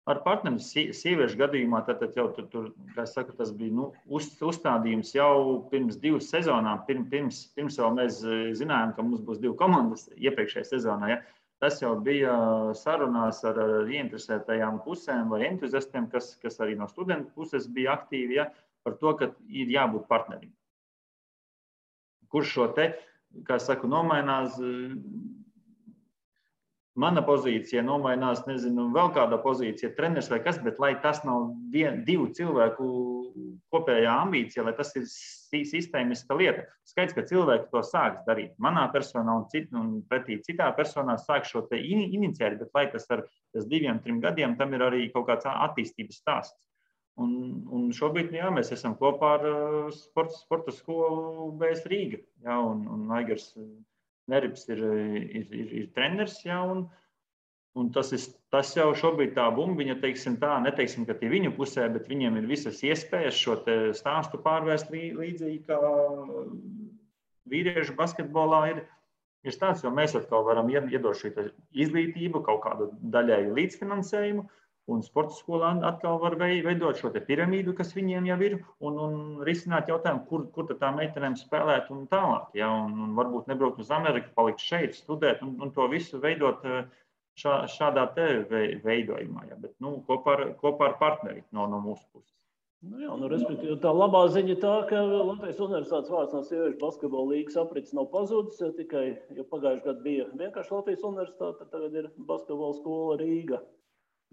ar partneri sieviešu gadījumā, tad jau tur, kā es saku, tas bija uzstādījums jau pirms 2 sezonām. Pirms jau mēs zinājām, ka mums būs 2 komandas iepriekšējā sezonā. Ja? Tas jau bija sarunās ar ieinteresētajām pusēm vai entuziastiem, kas arī no studentu puses bija aktīvi, ja? Par to, ka ir jābūt partnerim. Kurš šo te, kā es saku, nomainās. Mana pozīcija nomainās, nezinu, vēl kāda pozīcija, treneris vai kas, bet lai tas nav 2 cilvēku kopējā ambīcija, lai tas ir sistēmiska lieta. Skaidrs, ka cilvēki to sāks darīt. Manā personā un pretī citā personā sāk šo te iniciēt, bet lai tas ar 2-3 gadiem, tam ir arī kaut kāds attīstības stāsts. Un šobrīd, jā, mēs esam kopā ar sporta skolu BS Rīga, jā, un Aigars Neribs ir treneris, jā, un tas jau šobrīd tā bumbiņa, teiksim tā, neteiksim, ka tie viņu pusē, bet viņiem ir visas iespējas šo te stāstu pārvērst līdzīgi, kā vīriešu basketbolā ir stāsts, jo mēs atkal varam iedot šo izglītību, kaut kādu daļēju līdzfinansējumu, un sporta skolā atkal var veidot šo te piramīdu, kas viņiem jau ir, un risināt jautājumu, kur tad tā meitenēm spēlēt un tālāk. Ja? Un varbūt nebraukt uz Ameriku, palikt šeit, studēt un to visu veidot šādā te veidojumā. Ja? Bet kopā ar partneri no mūsu puses. Respektīvi, tā labā ziņa tā, ka Latvijas Universitātes vārds no sieviešu basketbola līgas aprits nav pazudis, tikai, jo pagājušajā gadā bija vienkārši Latvijas Universitāte, tagad ir basketbola skola Rīga.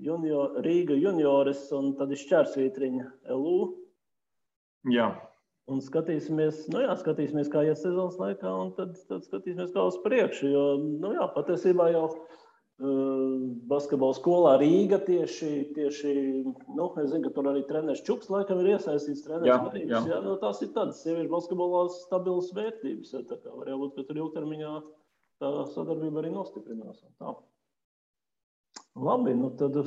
Rīga junioris un tad ir šķērsvītriņa LU. Jā. Un skatīsimies, kā iet sezonas laikā, un tad skatīsimies, kā uz priekšu. Jo, patiesībā jau basketbola skolā Rīga tieši, es zinu, ka tur arī treneris Čuks laikam ir iesaistīts treneris Marīgs. Jā, tās ir tādas sieviešu basketbolā stabilas vērtības. Tā kā var jābūt, ka tur ilgtermiņā tā sadarbība arī nostiprinās. Tā. Labi, tad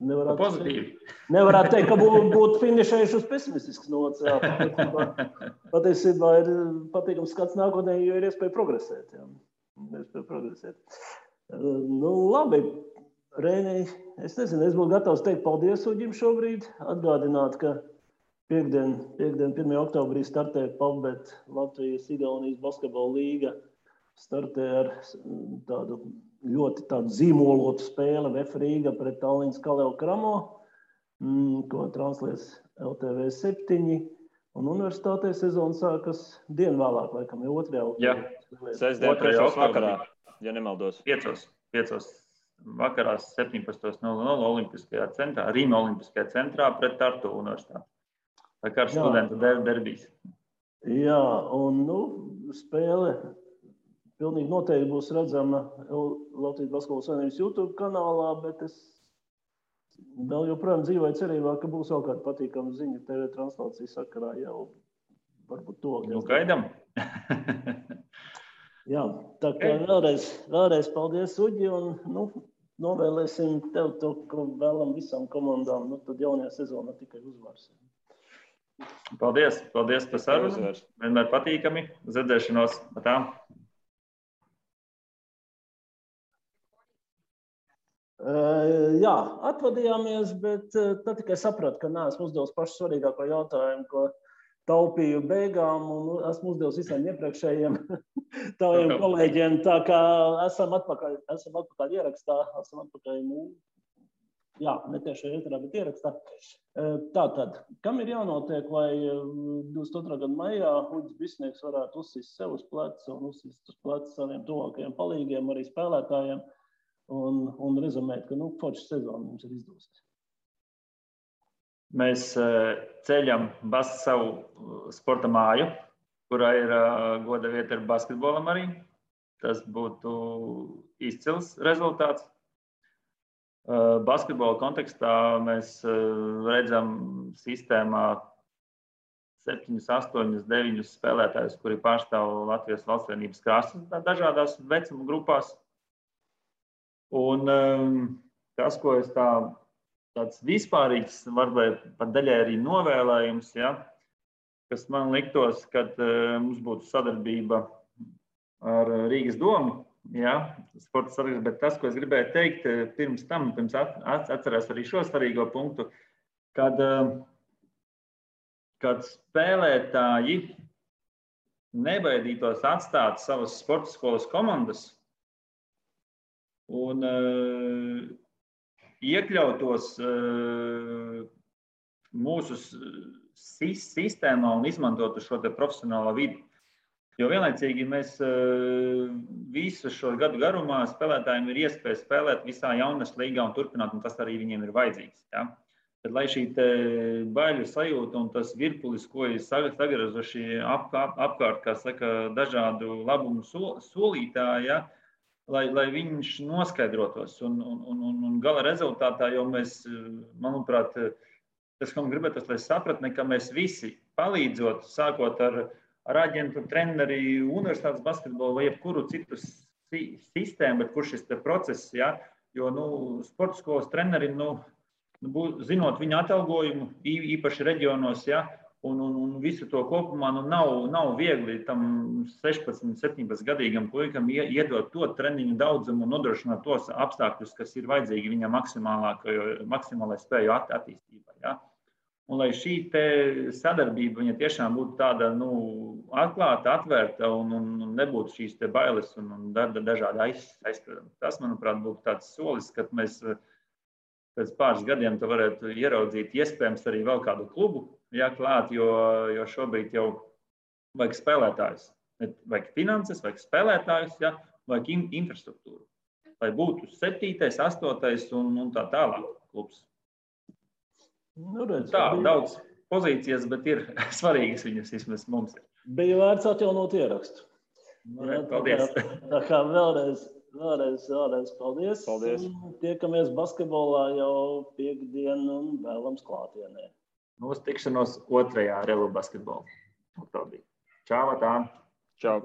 nevarētu teikt, ka būtu finišējuši uz pesimistiskas nots. Patiesībā ir patīkams skats nākotnē, jo ir iespēja progresēt. Labi, Reini, es nezinu, es būtu gatavs teikt paldies Uģim šobrīd. Atgādināt, ka piekdien 1. oktobrī startē PAVBET Latvijas-Igaunijas basketbola līga. Startē ar tādu ļoti zīmolotu spēli VF Rīga pret Tallinas Kaleo Kramo, ko translēs LTV 7. Un universitātē sezona sākas dienu vēlāk, laikam, 2. oktobrī. Sestdien 3. vakarā, ja nemaldos. 5. vakarā 17:00 Olimpiskajā centrā, Rīma Olimpiskajā centrā pret Tartu universitāti. Tā kā ar studentu derbijas. Jā, un spēle pilnīgi noteikti būs redzama Latvijas Basketbola Savienības YouTube kanālā, bet es vēl joprojām dzīvoju cerībā, ka būs vēl kāda patīkama ziņa TV translācijas sakarā jau varbūt to. Gaidām. Jā, tā kā vēlreiz paldies, Uģi, un novēlēsim tev to, ko vēlam visām komandām, tad jaunajā sezonā tikai uzvars. Paldies par sarunu. Vienmēr patīkami. Uz redzēšanos. Tā. Jā, atvadījāmies, bet tad tikai sapratu, ka neesmu uzdevis pašu svarīgāko jautājumu, ko taupīju beigām, un esmu uzdevis visiem iepriekšējiem taviem kolēģiem. Tā kā esam atpakaļ ierakstā, ne tieši ēterā, bet ierakstā. Tātad, kam ir jānotiek, lai 22. gada maijā Uģis Bisnieks varētu uzsist sev uz pleca un uzsist uz pleca saviem tuvākajiem palīgiem, arī spēlētājiem, un rezumēt, ka forša sezona mums ir izdosies. Mēs ceļam savu sporta māju, kurā ir goda vieta ar basketbolam arī. Tas būtu izcils rezultāts. Basketbola kontekstā mēs redzam sistēmā 7, 8, 9 spēlētājus, kuri pārstāv Latvijas valsts vienības krāsas dažādās vecuma grupās. Un tas, ko es tāds vispārīgs, varbūt pat daļai arī novēlējums, kas man liktos, kad mums būtu sadarbība ar Rīgas domu, Jā, sporta saraksts, bet tas, ko es gribēju teikt, pirms atcerēs arī šo svarīgo punktu, kad spēlētāji nebaidītos atstāt savas sporta skolas komandas un iekļautos mūsu sistēmā un izmantotu šo te profesionālo vidi. Jo vienlaicīgi mēs visu šo gadu garumā spēlētājiem ir iespēja spēlēt visā jaunas līgā un turpināt, un tas arī viņiem ir vajadzīgs. Ja? Tad, lai šī baiļu sajūta un tas virpulis, ko ir sagrazuši apkārt, kā saka, dažādu labumu solītāji, ja? lai viņš noskaidrotos. Un gala rezultātā jau mēs, manuprāt, tas, ko man gribētu, lai sapratni, ka mēs visi palīdzot, sākot ar aģentu, treneri, universitātes basketbolu vai jebkuru citu sistēmu, bet kur šis process, ja? Jo sporta skolas trenerim, zinot viņa atalgojumu, īpaši reģionos, ja? un visu to kopumā, nav viegli tam 16, 17 gadīgam puikam iedot to treniņu daudzumu un nodrošināt tos apstākļus, kas ir vajadzīgi viņam maksimālai spēju attīstībai. Ja? Un lai šī sadarbība viņa tiešām būtu tāda atklāta, atvērta un nebūtu šīs bailes un dažādi aizspriedumi. Tas, manuprāt, būtu tāds solis, kad mēs pēc pāris gadiem varētu ieraudzīt iespējams arī vēl kādu klubu klāt, jo šobrīd jau vajag spēlētājus. Vajag finanses, vajag spēlētājus, vajag infrastruktūru. Lai būtu 7., 8. un tā tālāk klubs. Daudz pozīcijas, bet ir svarīgas viņas vismaz mums. Bija vērts atjaunot ierakstu. Paldies. Tā kā vēlreiz paldies. Tiekamies basketbolā jau piekdien un vēlams klātienē. Uz tikšanos 2. Relu basketbolu. Čau, tā. Čau.